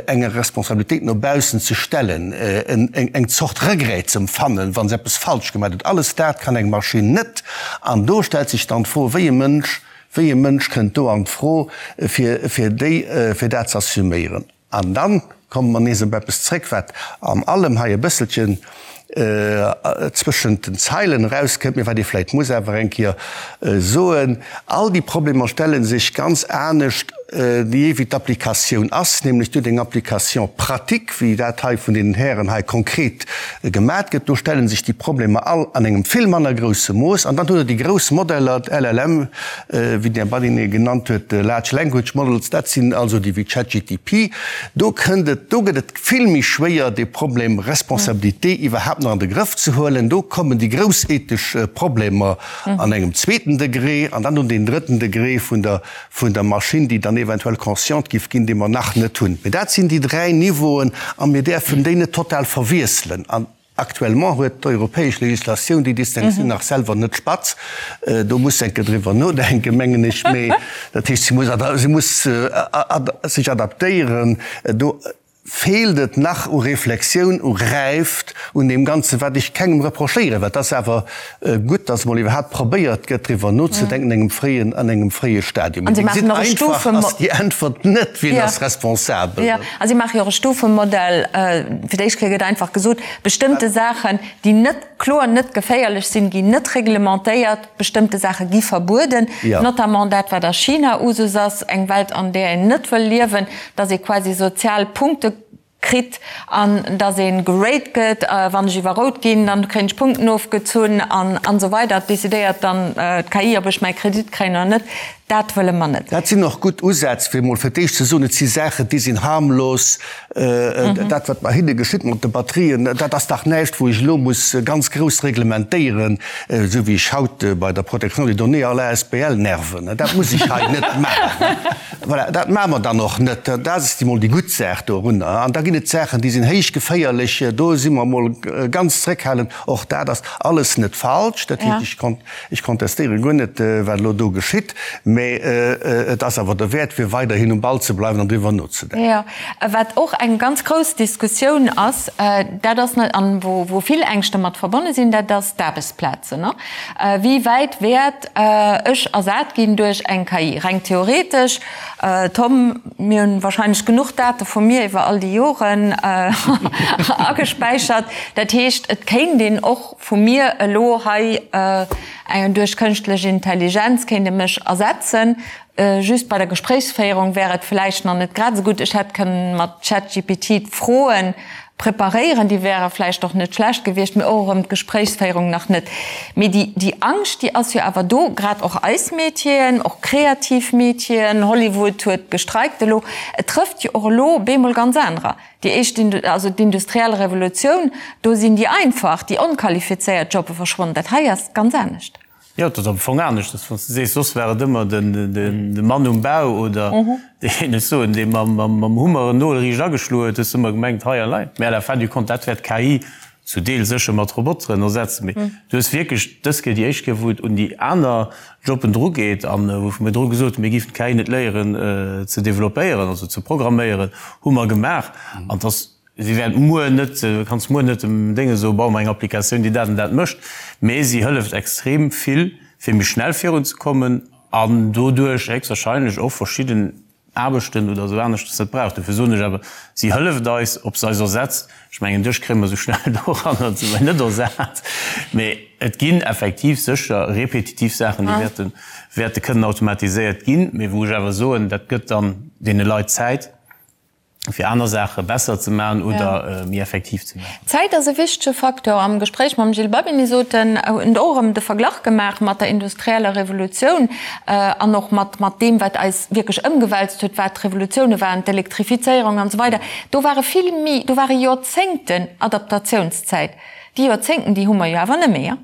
enger Responsabilitéit no baussen ze stellen, eng Zort Regret ze empfannen, wa se eppes falsch gemaach huet. Alles dat kann eng Maschinn net. An do stellt sech dann d'Fro, wéi e Mënsch, wéi e Mënsch kënnt do an d'Fro, fir, fir déi, fir dat ze assuméieren. An dann komme mer nees op eppes zréck, wat an allem hei e bësselchen zwëschent den Zeilen erauskënnt, mee wat ee vläicht muss awer eng Kéier soen, All déi Problemer stelle sech ganz anescht, jee wéi d'Applikatioun ass, nämlech duerch eng Application pratique, wéi dat hei vun deenen Hären hei konkret gemat gëtt. Do stelle sech déi Problemer all an engem vill manner grousse Mooss. An dann hutt Der déi grouss Modeller, d'LLM, wéi den Här Badinter genannt huet, Large Language Models, dat sinn also déi wéi ChatGTP. Do kënnt et, do gëtt et vill méi schwéier, dee Problem Responsabilité iwwerhaapt nach an de Grëff ze huelen. Do kommen déi grouss ethesch Problemer an engem zweeten Degré an dann un deen drëtten Degré vun der, vun der Maschinn, déi dann eventuell consciente giff ginn, dee mer nach net hunn. Mee dat sinn déi dräi Niveauen a mir däerfen déi net total verwiesselen. An actuellement huet d'europäesch Législatioun déi Distinctioun nach selwer net spatz. Do muss se eng Kéier driwwer nodenken, mengen ech. Mee dat heescht, si muss, si muss sech adaptéieren. Do feelt et nach u Reflexioun, u Räift, un deem Ganzen, wat ech kengem reprochéieren, well et ass awer gutt, dass emol iwwerhaapt probéiert gëtt, driwwer nozedenken an engem fréien, an engem fréie Stadium.
Mee Dir gesitt,
einfach ass déi Äntwert net, Wien ass responsabel?
Jo, a si maache jo och e Stufemodell. Fir d'éischt Kéier gëtt einfach gesot, bestëmmte Saachen, déi net kloer net geféierlech sinn, ginn net reglementéiert, bestëmmte Saache gi verbueden, notamment dat, wat a China Usus ass, eng Welt, an där een net wëll liewen, dass ee quasi sozial Punkte kritt an dass ee gerate gëtt, wann ech iwwer rout ginn, dann kréien ech Punkten ofgezunn an an esou weider. Et decidéiert dann d'KI, ob ech mäi Kredit kréien oder net. Dat wëlle mer net.
Dat sinn och gutt Usätz, fir emol fir d'éischt ze soen, et si Saachen, déi sinn harmlos. Dat, wat mer hinne geschitt mat de Batterien, dat ass dach näischt, wou ech elo muss ganz grouss reglementéieren, esou wéi ech haut bei der Protection des données all asbl nerven. Dat muss ech hei net maachen. Voilà, dat maache mer dann och net. Dat ass emol déi gutt Saach dorunner. An da ginn et Saachen, déi sinn héich geféierlech, do si mer emol ganz zréckhalend. Och dat ass alles net falsch. Dat heescht, ech Ech kontestéiere guer net, wat elo do geschitt, mä et ass awer derwäert, fir weiderhin um Ball ze bleiwen an driwwer nozedenken.
Jo, wat och eng ganz grouss Diskussioun ass, dat ass, an wou vill Ängschte mat verbonne sinn, dat ass d'Aarbechtsplazen. Wéi wäit wäert ech ersat ginn duerch eng KI? Reng theoretesch, Tom, mir hunn wahrscheinlech genuch Date vu mir iwwer all déi Joren agespäichert. Dat heescht, et kéint een och vu mir elo hei duerch kënschtlech Intelligenz kéint e mech ersetzen. Just bei der Gespréichsféierung wär et vläicht nach net grad esou gutt. Ech hätt kënnen mat ChatGPT d'Froen. Preparéieren, déi wäre vläicht och net schlecht gewiescht, mee och erëm d'Gespréichsféierung nach net. Mee déi, déi Angscht, déi ass jo awer do, grad och eis Métieren, och kreativ Métieren, Hollywood huet gestreikt elo, et trëfft jo och elo bemol ganz anerer. Déi éischt, also d'industriell Revolutioun, do sinn déi einfach, déi onqualifizéiert Jobbe verschwonnen. Dat hei ass ganz anescht.
Jo, et ass am Fong aneschters, wann s de sees, soss war et ëmmer de Mann um Bau oder deen, ech soen, dee mam Hummer en Nol riicht ageschloen huet, hues de ëmmer gemengt, hei elei. Mä à la fin du compte, dat wäert d'KI zu Deel sécher mat Roboteren ersetzen. Mee du hues wierklech dës Kéier déi éischt Kéier, wou et un déi aner Jobben drugeet an wou mir dru gesot hunn, mir géifen d'KI net léieren ze développéieren, also ze programméieren, hu mer gemaach. An et ass Si wäert muer net, du kanns muer net dem Dénge soen, bau mer eng Applikatioun, déi dat an dat mécht, mee si hëlleft extrem vill, fir méi schnell virunzekommen an doduerch héchstwahrscheinlech och verschidden Aarbechten oder esou aneschters net brauch. Dofir soen ech awer, si hëlleft eis. Ob se eis ersetzt, ech mengen, dech kréie mer esou schnell doranner, se mer net ersat, mee et ginn effektiv sécher repetitiv Saachen, déi wäerte, wäerte kënnen automatiséiert ginn, mee wou ech awer soen, dat gëtt dann deene Leit Zäit, fir aner Saache besser ze maachen oder méi effektiv ze maachen.
Zäit ass e wichtege Facteur. Am Gespréich mam Gilles Babbini sot en, huet en och erëm de Verglach gemaach mat der industrieller Revolutioun an och mat mat deem, wat eis wierklech ëmgewälzt huet, wat d'Revolutioune waren, d'Elektrifizéierung an esou weider. Do ware vill méi, do ware Joerzéngten Adaptatiounszäit. Déi Joerzéngten, déi hu mer jo awer net méi.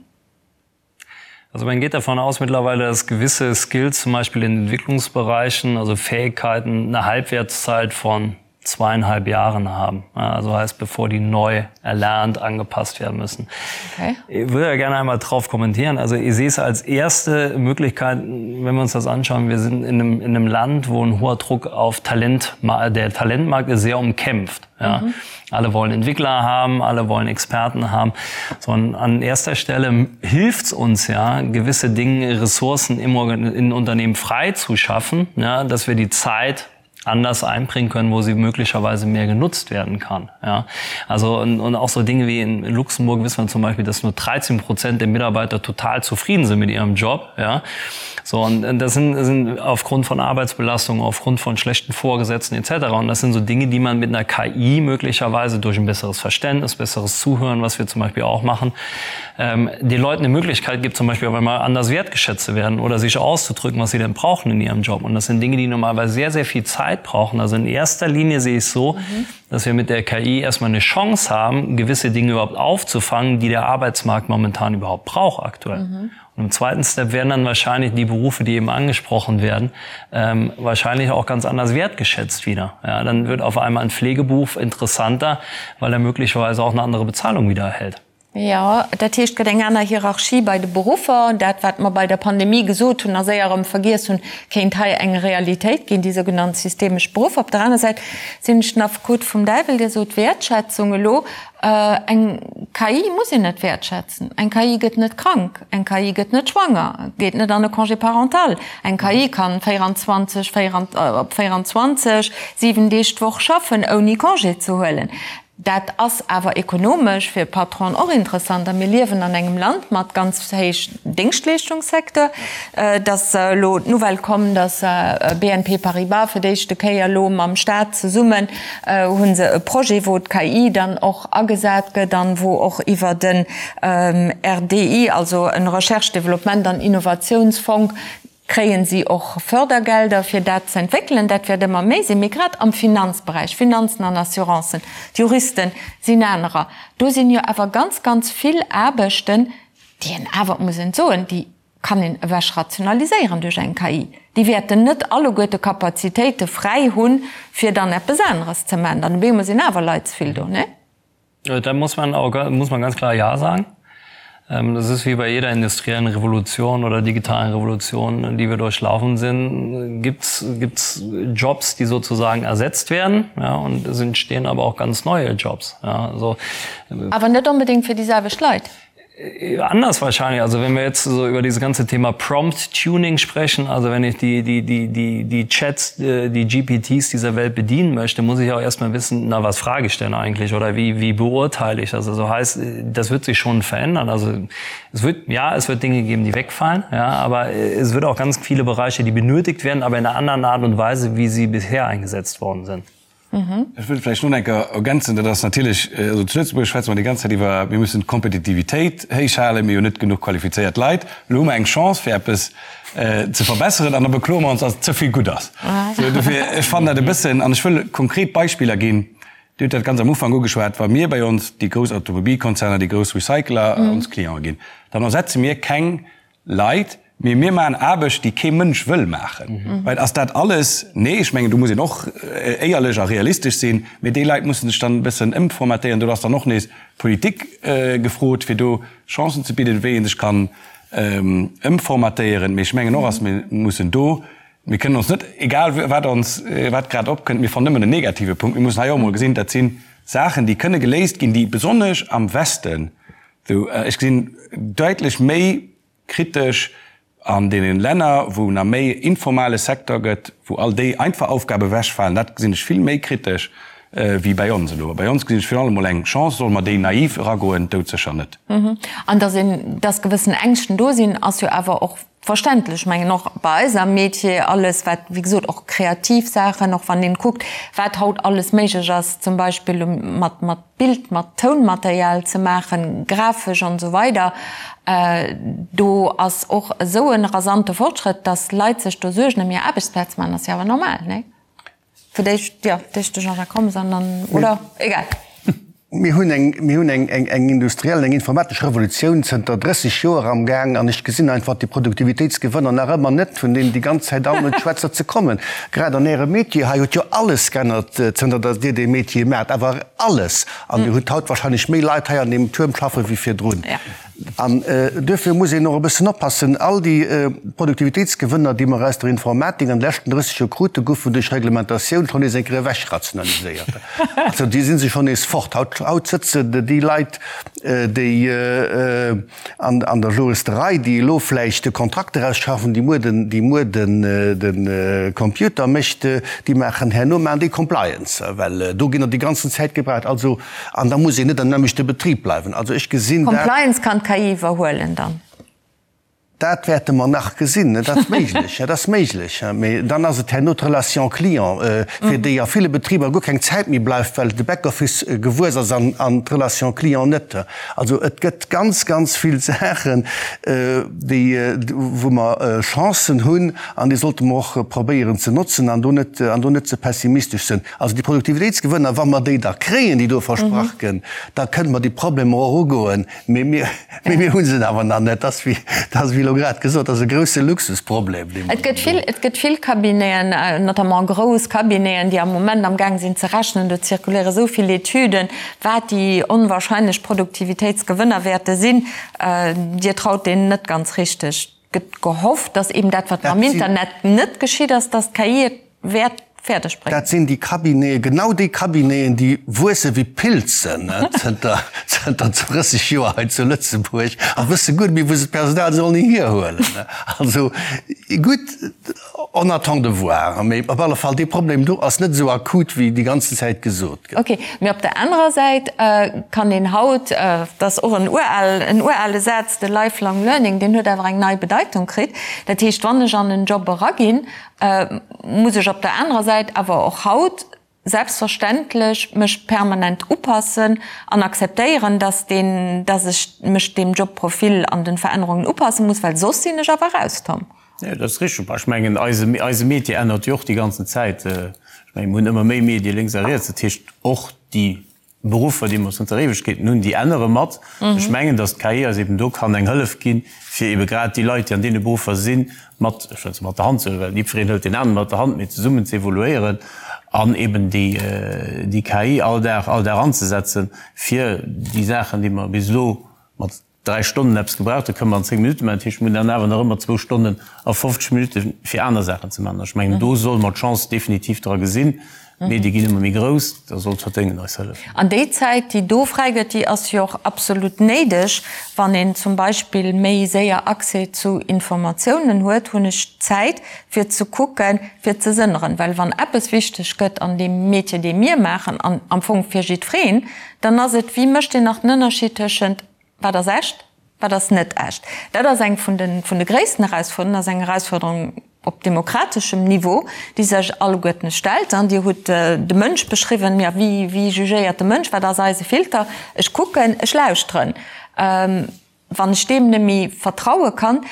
Also man geht davon aus mittlerweile, dass gewisse Skills zum Beispiel in Entwicklungsbereichen, also Fähigkeiten eine Halbwertszeit von zweieinhalb Jahren haben. Also heißt bevor die neu erlernt angepasst werden müssen. Okay. Ich würde ja gerne einmal drauf kommentieren. Also ich sehe es als erste Möglichkeit, wenn wir uns das anschauen, wir sind in einem, in einem Land, wo ein hoher Druck auf Talent der Talentmarkt ist sehr umkämpft. Ja. Mhm. Alle wollen Entwickler haben, alle wollen Experten haben. Sondern an erster Stelle hilft es uns ja, gewisse Dinge, Ressourcen im, in Unternehmen frei zu schaffen, ja, dass wir die Zeit anders einbringen können, wo sie möglicherweise mehr genutzt werden kann. Ja. Also und, und auch so Dinge wie in Luxemburg wissen wir zum Beispiel, dass nur 13 Prozent der Mitarbeiter total zufrieden sind mit ihrem Job. Ja. So und das sind, sind aufgrund von Arbeitsbelastung, aufgrund von schlechten Vorgesetzten etc. Und das sind so Dinge, die man mit einer KI möglicherweise durch ein besseres Verständnis, besseres Zuhören, was wir zum Beispiel auch machen, ähm, den Leuten eine Möglichkeit gibt, zum Beispiel auf einmal anders wertgeschätzt zu werden oder sich auszudrücken, was sie denn brauchen in ihrem Job. Und das sind Dinge, die normalerweise sehr, sehr viel Zeit brauchen. Also in erster Linie sehe ich so, mhm. dass wir mit der KI erstmal eine Chance haben, gewisse Dinge überhaupt aufzufangen, die der Arbeitsmarkt momentan überhaupt braucht aktuell. Mhm. Und im zweiten Step werden dann wahrscheinlich die Berufe, die eben angesprochen werden, ähm, wahrscheinlich auch ganz anders wertgeschätzt wieder. Ja, dann wird auf einmal ein Pflegeberuf interessanter, weil er möglicherweise auch eine andere Bezahlung wieder erhält.
Jo, dat heescht, et gëtt eng aner Hierarchie bei de Beruffer. Dat, wat mer bei der Pandemie gesot hunn a séier erëm vergiess hunn, kéint hei eng Realitéit ginn, déi sougenannt systemesch Beruffer. Op der aner Säit sinn ech den Affekot vum Däiwel, Dir sot Wäertschätzung elo. Eng KI muss een net wäertschätzen. Eng KI gëtt net krank, eng KI gëtt net schwanger, geet net an e Congé parental. Eng KI kann 24, op 24, 7 Deeg d'Woch schaffen, ouni Congé ze huelen. Dat ass awer ekonomesch fir Patronen och interessant. A mir liewen an engem Land mat ganz héich Déngschtleeschtungssecteur. Et ass elo d'Nouvelle komm, datt BNP Paribas fir d'éischte Kéier elo mam Staat zesummen hu se e Projet, wou d'KI dann och agesat gëtt an wou och iwwer den RDI, also en Recherche, Développement an Innovationsfong, kréien si och Fördergelder, fir dat ze entwéckelen. Dat wäert ëmmer méi sinn. Mee grad am Finanzberäich, Finanzen an Assurancen, d'Juristen sinn anerer, do sinn jo awer ganz, ganz vill Aarbechten, déi een awer, et muss een et soen, déi kann een ewech rationaliséieren duerch eng KI. Déi wäerten net alleguerte Kapazitéite fräi hunn, fir dann eppes aneres ze maachen. Dann op eemol sinn awer Leit ze vill do, nee?
Da muss man auch, muss man ganz klar Ja sagen. Ähm, das ist wie bei jeder industriellen Revolution oder digitalen Revolution, die wir durchlaufen sind, gibt es Jobs, die sozusagen ersetzt werden ja, und es entstehen aber auch ganz neue Jobs. Ja,
also, aber net unbedingt fir déi selwecht Leit.
Äh, anders wahrscheinlich. Also wenn wir jetzt so über dieses ganze Thema Prompt Tuning sprechen, also wenn ich die, die, die, die, die Chats, äh, die GPTs dieser Welt bedienen möchte, muss ich auch erstmal wissen, na was frage ich denn eigentlich oder wie, wie beurteile ich das? Also heißt, das wird sich schon verändern. Also es wird, ja, es wird Dinge geben, die wegfallen, ja, aber es wird auch ganz viele Bereiche, die benötigt werden, aber in einer anderen Art und Weise, wie sie bisher eingesetzt worden sind.
Ech wëll vläicht nach eng Kéier ergänzen, dat ass natierlech, also zu Lëtzebuerg schwätze mer déi ganz Zäit iwwer, mir mussen d'Kompetitivitéit héich halen, mir hunn net genuch qualifizéiert Leit. Elo hu mer eng Chance fir eppes ze verbesseren an da bekloe mer ons, datt ze vill gutt ass. Sou, dofir, ech fannen dat e bëssen, an ech wëll konkret Beispiller ginn, Dir hutt dat ganz am Ufank ugeschwat, wa mir bei ons déi grouss Automobilkonzerner, déi grouss Recycler ons Cliente ginn, dann ersetze mir keng Leit, mee mir maachen Aarbecht, déi kee Mënsch wëll maachen. Well ass dat alles? Nee, ech mengen, do muss een och éierlech a realistesch sinn. Mee déi Leit musse sech dann e bëssen ëmformatéieren. Do ass dann och nees d'Politik gefrot, fir do Chancen ze bidden, wéi ee sech kann ëmformatéieren. Mee ech mengen och, ass mir mussen do, mir kënnen ons net, egal wat ons, wat grad opkënnt, mir fannen nëmmen en negative Punkt. Mir mussen hei och emol gesinn, dat si Saachen, déi kënne geléist ginn, déi besonnesch am Westen, Ech gesinn däitlech méi kritesch an deene Länner, wou nach méi informale Secteur gëtt, wou all déi einfach Aufgabe ewechfalen, dat gesinn ech vill méi kritesch wéi bäi ons elo. Bei ons gesinn ech virun allem emol eng Chance. Solle mer déi naiv eragoen? Doudsécher net.
An dass een, dass gewëssen Ängschten do sinn, ass jo awer och verständlech. Ech mengen och bei eis am Metier, alles wat, wéi gesot, och kreativ Saachen, och wann een kuckt, wat haut alles méiglech ass, zum Beispill mat, mat Bild, mat Tounmaterial ze maachen, grafesch an esou weider, do ass och esou e rasante Fortschrëtt, dass Leit sech do Suergen ëm hir Aarbechtsplaz maachen, ass jo awer normal, nee? Fir d'éischt, jo, d'éischt de Jean-Jacques Rommes an dann, oder? Egal.
Mir hunn eng, mir hunn eng, eng, eng industriell, eng informatesch Revolutioun zënter 30 Joer am Gaang an ech gesinn einfach déi Produktivitéitsgewënner nach ëmmer net, vun deenen déi ganz Zäit all net schwätzer ze kommen. Grad an Ärem Métier hei huet jo alles g'ännert, zënter datt Dir dee Métier maacht, awer alles! An Dir hutt haut wahrscheinlech méi Leit hei an deem Tuerm schaffe wéi virdrun. An duerfir muss een och e bëssen oppassen, All déi Produktivitéitsgewënner, déi mer aus der Informatik an de leschten 30 Joer kruten, goufen duerch Reglementatioun schonn nees eng Kéier ewechrationaliséiert. Also déi si se schonn nees fort. Haut, haut sëtzen déi Leit, déi an, an der Juristerei, déi elo vläicht de Kontrakt erausschaffen, déi muer den, déi muer den, de Computer mécht, déi maachen herno maachen déi Compliance, well do ginn der déi ganzen Zäit gebraucht. Also An da muss een net am nämmlechte Betrib bleiwen. Also ech gesinn
dat. Compliance kann d'KI iwwerhuelen dann?
Dat wäerte mer nach gesinn. Dat ass méiglech, dat ass méiglech. Mee dann ass et herno d'Relation client, fir déi a ville Betriber guer keng Zäit méi bleift, well de Backoffice gewuess ass an d'Relation client net. Also et gëtt ganz, ganz vill Saachen, déi, wou mer Chancen hunn an déi sollte mer och probéieren ze notzen an do net, an do net ze pessimistesch sinn. Also déi Produktivitéitsgewënner, wa mer déi da kréien, déi do versprach gënn, da kënne mer déi Problemer och ugoen. Mee mir, mee mir hu se awer nach net. Dat ass wéi, dat ass wéi elo grad gesot, dat ass e grouse Luxusproblem, dee mer
Et gëtt vill, et gëtt vill Cabineten, notamment grouss Cabineten, déi am Moment amgaang sinn ze rechnen. Do zirkuléiere esou vill Etüden, wat déi onwahrscheinlech Produktivitéitsgewënner wäerte sinn. Dir traut deenen net ganz richteg. Et gëtt gehofft, datt eben dat, wat mam Internet net geschitt ass, datt d'KI et wäert fäerdeg bréngen.
Dat sinn déi Cabineten, genau déi Cabineten, déi wuesse wéi Pilzen zënter zënter 30 Joer hei zu Lëtzebuerg a wësse guer net méi, wou se d'Personal sollen hierhuelen. Also gutt, on attend de voir. Mee op alle Fall, dee Problem do ass net esou akut, wéi déi ganzen Zäit gesot gëtt.
Ok, mee op der anerer Säit kann een haut, dat ass och en ural, en urale Saz, de lifelong learning, deen huet awer eng nei Bedeitung kritt. Dat heescht, wann ech an en Job eraginn, muss ech op der anerer Säit awer och haut selbstverständlech mech permanent upassen an akzeptéieren, dass deen, dass ech mech deem Jobprofil an den Verännerungen upasse muss, well soss sinn ech awer raus, Tom.
Jo, dat ass richteg. Ech mengen, eise, eise Métier ännert jo och déi ganzen Zäit. Ech mengen, mir hunn ëmmer méi Medie lénks a riets. Dat heescht, och déi Beruffer, déi mer zënter Éiwegkeeten hunn, déi ännere mat. Ech mengen, datt d'KI eis eben do kann eng Hëllef ginn, fir ebe grad déi Leit, déi an deene Beruffer sinn, mat, ech wëll se mat der Hand ze huelen, well jiddwereen hëlt deen aneren mat der Hand, mee zesummen ze evoluéieren an eben déi, déi KI all Dag, all Dag anzesetzen, fir déi Saachen, déi mer bis elo mat 3 Stonnen eppes gebraucht, da kënne mer an 10 Minutte maachen. Dat heescht, mir hunn dann awer nach ëmmer zwou Stonnen a 50 Minutte fir aner Saachen ze maachen. Ech mengen, do solle mer d'Chance definitiv dra gesinn. D'Medie ginn ëmmer méi grouss, da soll d'Verdéngen eis hëllefen.
An déi Zäit, déi do fräi gëtt, déi ass jo och absolut néideg, wann een zum Beispill méi séier Accès zu Informatiounen huet, hunn ech Zäit fir ze kucken, fir ze sënneren. Well wann eppes wichteg gëtt an deem Métier, dee mir maachen, an am Fong fir jiddwereen, Dann ass et, wéi mécht een nach den Ënnerscheed tëschent wat ass echt, wat ass net echt? Dat ass eng vun de, vun de gréissten Erausfuerderungen, ass eng Erausfuerderung. Op demokrateschem Niveau, déi sech alleguerten stellt. An Dir hutt de Mënsch beschriwwen. Jo, wéi, wéi jugéiert de Mënsch? Wat ass eise Filter? Ech kucken, ech lauschteren. Wann ech deem net méi vertraue kann.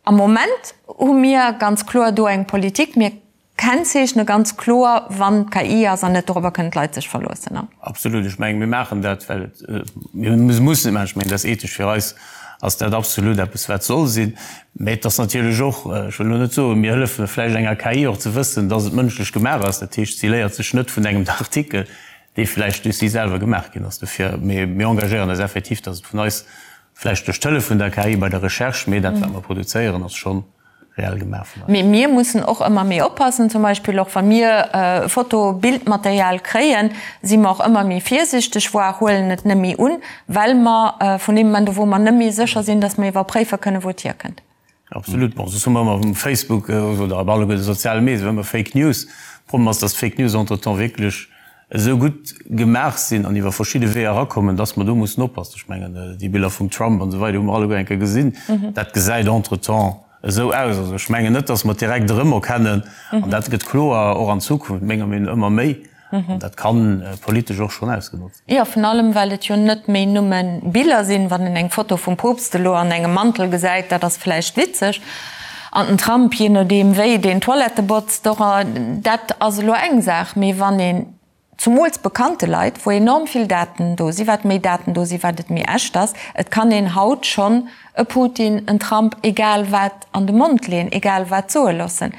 Am Moment hu mir ganz kloer do eng Politik. Mir kennzeechne ganz kloer, wann d'KI ass an net dorobber kënnen d'Leit sech verloossen.
Absolut. Ech mengen, mir maachen dat, well et, mir mussen et maachen. Ech mengen, dat ass ethesch fir eis ass dat absolut eppes, wat soll sinn. Mä et ass natierlech och, ech wëll elo net soen, mir hëllefe vläicht enger KI och ze wëssen, dass et mënschlech gemaach ass. Dat heescht, si léiert sech net vun engem Artikel, dee vläicht duerch si selwer gemaach ginn ass. Dofir, mir engagéieren eis effektiv, dass et vun eis, vläicht duerch d'Hëllef vun der KI bei der Recherche, mee dat, wat mer produzéieren, ass schonn reell gemaach
vun eis. Mee mir mussen och ëmmer méi oppassen, zum Beispill och wa mir Foto-, Bildmaterial kréien, si mer och ëmmer méi virsichteg, voire huelen et net méi un, well mer vun deem Moment u wou mer net méi sécher sinn, dass mer iwwerpréife kënnen, wou et hierkënnt.
Absolut. Bon, soss hu mer ëmmer um Facebook oder op alleguer de soziale Medien ëmmer Fake News. Problem ass, dass d'Fake News entretemps wierklech esou gutt gemaach sinn an iwwer verschidde Weeër erakommen, dass mer do mussen oppassen. Ech mengen, déi Biller vum Trump an esou weider hu mer alleguer eng Kéier gesinn. Dat gesäit entretemps esou aus. Also ech mengen net, dass mer et direkt erëmerkennen. An dat gëtt kloer och an Zukunft, menger Meenung no, ëmmer méi. An dat ka politesch och schonn ausgenotzt
ginn. Jo, vun allem, well et jo net méi nëmme Biller sinn. Wann een eng Foto vum Poopst elo an engem Mantel gesäit, dat ass vläicht witzeg. An den Trump, jee nodeem wéi deen d'Toilette botzt, och, dat ass elo eng Saach. Mee wann een, zumools bekannte Leit, wou enorm vill Daten do sinn, wat méi Daten do sinn, wat et méi echt ass, et kann een haut schonn e Putin, en Trump, egal wat an de Mond leeën, egal wat soe loossen.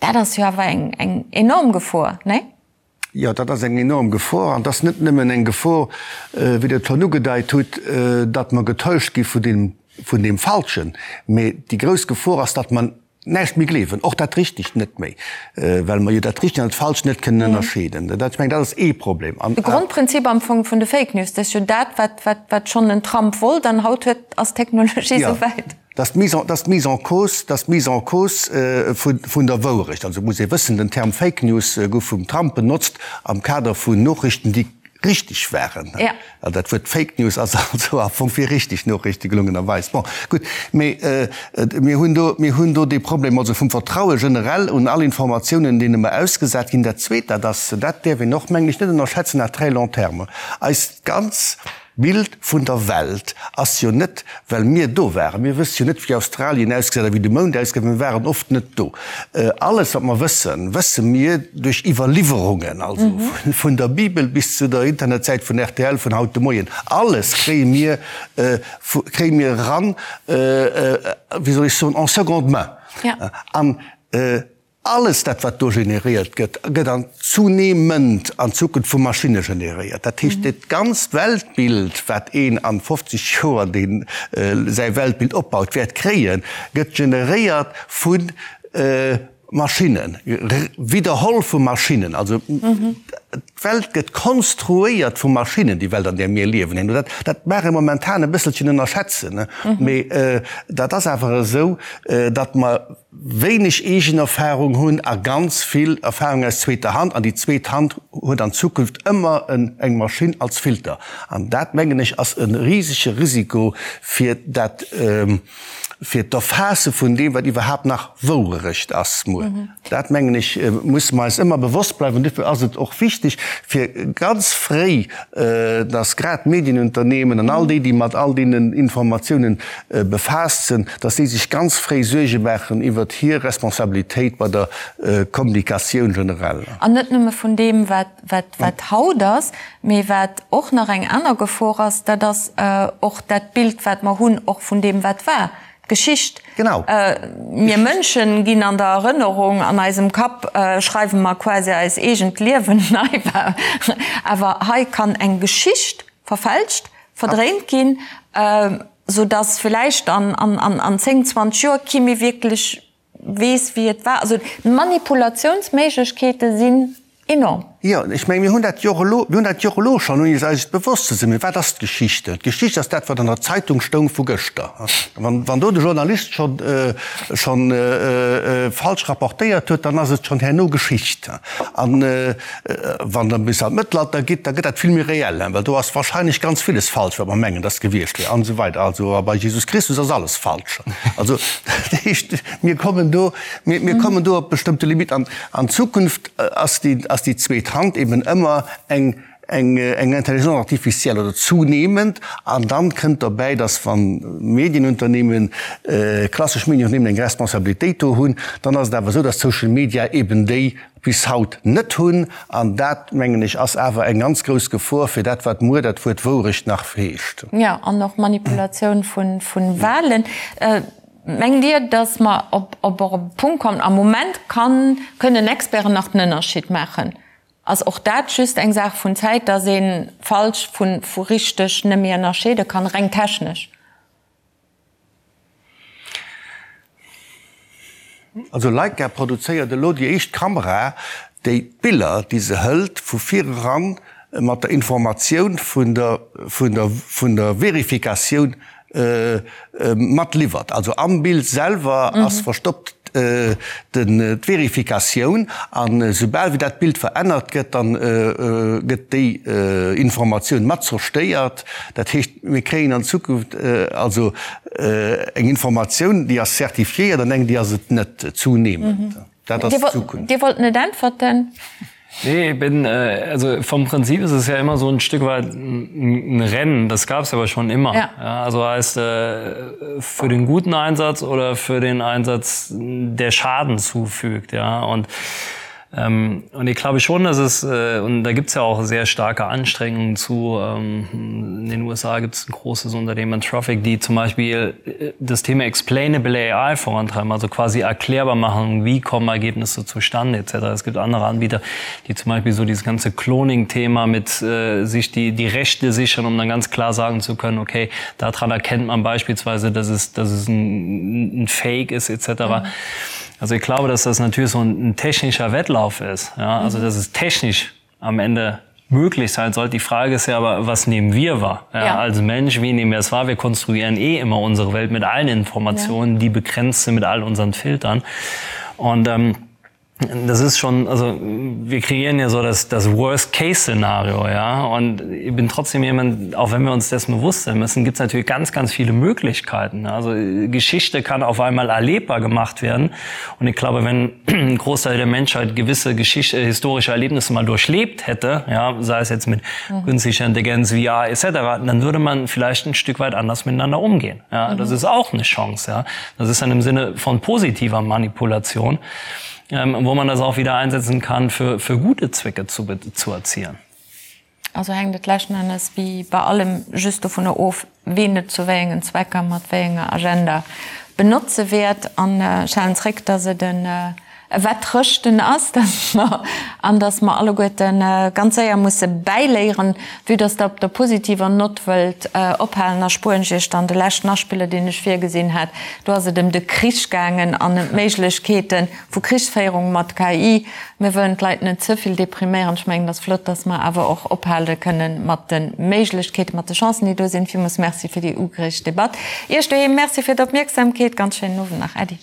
Dat ass jo awer eng, eng enorm Gefor, nee?
Jo, dat ass eng enorm Gefor. An et ass net nëmmen eng Gefor, wéi Der et schonn ugedeit hutt, datt mer getäuscht gi vun deem, vun deem Falschen, mee déi grouss Gefor ass, datt mer näischt méi gleewen, och dat Richtegt net méi, well mer jo dat Richtegt an dat Falscht net kënnen ënnerscheeden. Dat, ech mengen, dat ass ee Problem. An.
De Grondprinzip am Fong vun de Fake News, dat ass jo dat, wat, wat, wat schonn den Trump wollt, an haut huet, ass d'Technologie esou wäit.
Dat ass d'Mise en, dat ass d'Mise en cause, dat ass d'Mise en cause vun, vun der Wourecht. Also muss ee wëssen, den Term Fake News gouf vum Trump benotzt am Kader vun Nochrichten, déi richteg waren.
Ja.
Also dat Wuert Fake News ass also am Fong fir richteg Nochrichte gelungenerweis. Bon, gutt, mee mir hunn do, mir hunn do dee Problem also vum Vertraue generell un all Informatiounen, deene mer ausgesat ginn. Dat Zweet, dat ass, dat däerf een och, mengen ech, net ënnerschätzen à très long terme, eist ganz D'Bild vun der Welt ass jo net, well mir do waren. Mir wësse jo net, wéi Australien ausgesäit a wéi de Mound ausgesäit, mir waren oft net do. Alles, wat mer wëssen, wësse mir duerch Iwwerliwwerungen, also vun der Bibel bis zu der Internetsäit vun rtl vun haut de Moien. Alles kréie mir, kréie mir eran, wéi soll ech soen, en seconde main. An Alles dat, wat do generéiert gëtt, gëtt an zunehmend an Zukunft vu Maschinne generéiert. Dat heescht, dat ganzt Weltbild, wat een an 50 Joer, deen säi Weltbild opbaut, wäert kréien, gëtt generéiert vu Maschinnen, widderholl vu Maschinnen. Also d'Welt gëtt konstruéiert vu Maschinnen, déi Welt, an där mir liewen. Dat, dat mag ee momentan e bësselchen ënnerschätzen, mee dat ass awer esou, datt mer, wéineg eegen Erfahrung hunn a ganz vill Erfahrung aus zweeter Hand, an déi zweet Hand huet an Zukunft ëmmer eng Maschinn als Filter. An dat, mengen ech, ass e risege Risiko fir dat, fir d'Erfaasse vun deem, wat iwwerhaapt nach Wouerecht ass muer. Dat, mengen ech, musse mer eis ëmmer bewosst bleiwen. Duerfir ass et och wichteg, fir ganz fréi, dass grad d'Medienunternehmen an all déi, déi mat all deenen Informatiounen befaasst sinn, dass déi sech ganz fréi Suerge maachen iwwert hir Responsabilitéit bei der Kommunikatioun generell.
An net nëmme vun deem, wat haut ass, mee wat och nach eng aner Gefor ass, dat ass och dat Bild, wat mer hunn, och vun deem, wat war, d'Geschicht.
Genau.
Mir Mënschen ginn an der Erënnerung, an eisem Kapp schreiwe mer quasi eis eegent Liewen nei, awer hei kann eng Geschicht verfälscht, verdréint ginn, sou dass villäicht an 10, 20 Joer kee méi wierklech weess wéi et war. Also d'Manipulatiounsméiglechkeete sinn enorm.
Jo, ech menge mir hunn dat jo och elo, mir hunn dat jo och elo schonn, ouni eis et bewosst ze sinn. Mee wat ass d'Geschichte? D'Geschicht ass dat, wat an der Zeitung stoung vu gëschter. Wann, wann do de Journalist schonn, schonn falsch rapportéiert huet, dann ass et schonn herno Geschicht. An wann Der bis an d'Mëttelalter gitt, da gëtt dat vill méi reell, well do ass wahrscheinlech ganz villes falsch, wat mer mengen, dass gewiescht wier an esou weider. Also a bei Jesus Christus ass alles falsch. Also dat heescht, mir kommen do, mir, mir kommen do op bestëmmte Limiten. An an Zukunft ass déi, ass déi zweet Hand eben ëmmer eng, eng, eng Intelligence artificielle oder zunehmend. An dann kënnt derbäi, dass wann Medienunternehmen, klassesch Medienunternehmen eng Responsabilitéit do hunn, dann ass et awer esou, dass d'Social Media eben déi bis haut net hunn. An dat, mengen ech, ass awer eng ganz grouss Gefor fir dat, wat muer dat Wuert Wourecht nach heescht.
Jo, an och Manipulatioun vu Wahlen. Mengt Dir, datt mer op op e Punkt kommen, am Moment kann, kënnen Experten nach den Ënnerscheed maachen, ass och dat just eng Saach vun Zäit, datt ee falsch vu vu richteg net méi ënnerscheede kann, reng technesch?
Also Leica produzéiert elo déi éischt Kamera, déi d'Biller, déi se hëlt, vu vireran mat der Informatioun vun der vun der vun der Verifikatioun mat liwwert. Also am Bild selwer ass verstoppt d'Verifikatioun an esoubal wéi dat Bild verännert gëtt, dann gëtt déi Informatioun mat zerstéiert. Dat heescht, mir kréien an Zukunft also eng Informatioun, déi ass certifiéiert an eng, déi ass et net, zunehmend.
Dat ass d'Zukunft. Dir wollt net äntwerten.
Nee, ich bin, also vom Prinzip ist es ja immer so ein Stück weit ein Rennen, das gab es aber schon immer. Ja. Ja, also heißt äh, für den guten Einsatz oder für den Einsatz, der Schaden zufügt. Ja. Und Ähm, und ich glaube schon, dass es äh, und da gibt es ja auch sehr starke Anstrengungen zu ähm, in den USA gibt es ein großes Unternehmen Traffic, die zum Beispiel äh, das Thema Explainable AI vorantreiben, also quasi erklärbar machen, wie kommen Ergebnisse zustande etc. Es gibt andere Anbieter, die zum Beispiel so dieses ganze Cloning-Thema mit äh, sich die, die Rechte sichern, um dann ganz klar sagen zu können, okay, daran erkennt man beispielsweise, dass es, dass es ein, ein Fake ist etc. Mhm. Also ich glaube, dass das natürlich so ein, ein technischer Wettlauf ist. Ja? Also mhm. dass es technisch am Ende möglich sein sollte. Die Frage ist ja aber, was nehmen wir wahr? Ja, ja. Als Mensch, wie nehmen wir es wahr? Wir konstruieren eh immer unsere Welt mit allen Informationen, ja. die begrenzt sind mit all unseren Filtern. Und ähm, das ist schon also wir kreieren ja so das das worst case szenario ja und ich bin trotzdem jemand auch wenn wir uns dessen bewusst sein müssen gibt es natürlich ganz ganz viele möglichkeiten also geschichte kann auf einmal erlebbar gemacht werden und ich glaube wenn ein großteil der menschheit gewisse geschichte historische erlebnisse mal durchlebt hätte ja sei es jetzt mit mhm. künstlicher intelligenz vr etc dann würde man vielleicht ein stück weit anders miteinander umgehen ja mhm. das ist auch eine chance ja das ist dann im sinne von positiver manipulation ähm, wo man das auch wieder einsetzen kann für, für gute Zwecke zu, zu erzielen.
Also hänkt et leschten Ennes wéi bei allem just dovunner of, ween et zu wéi engen Zwecker mat wéi enger Agenda benotze wäert. An ech halen zréck, dass et en Wettrëschten ass, dass mer, an dass mer alleguerte ganz séier musse bäiléieren. Vue dass Der op der positiver Nott wëllt ophalen, erspueren ech Iech dann de leschten Aspiller, deen ech virgesinn hat. Do ass et ëm de Krich gaangen an ëm d'Méiglechkeete vu Krichsféierung mat KI. Mir wëllen d'Leit net ze vill depriméieren. Ech mengen, et ass flott, dass mer awer och ophale kënnen mat de Méiglechkeeten, mat de Chancen, déi do sinn. Villmools Merci fir déi ugereegt Debatt. Iech doheem Merci fir d'Opmierksamkeet. Ganz schéinen Owend nach. Äddi.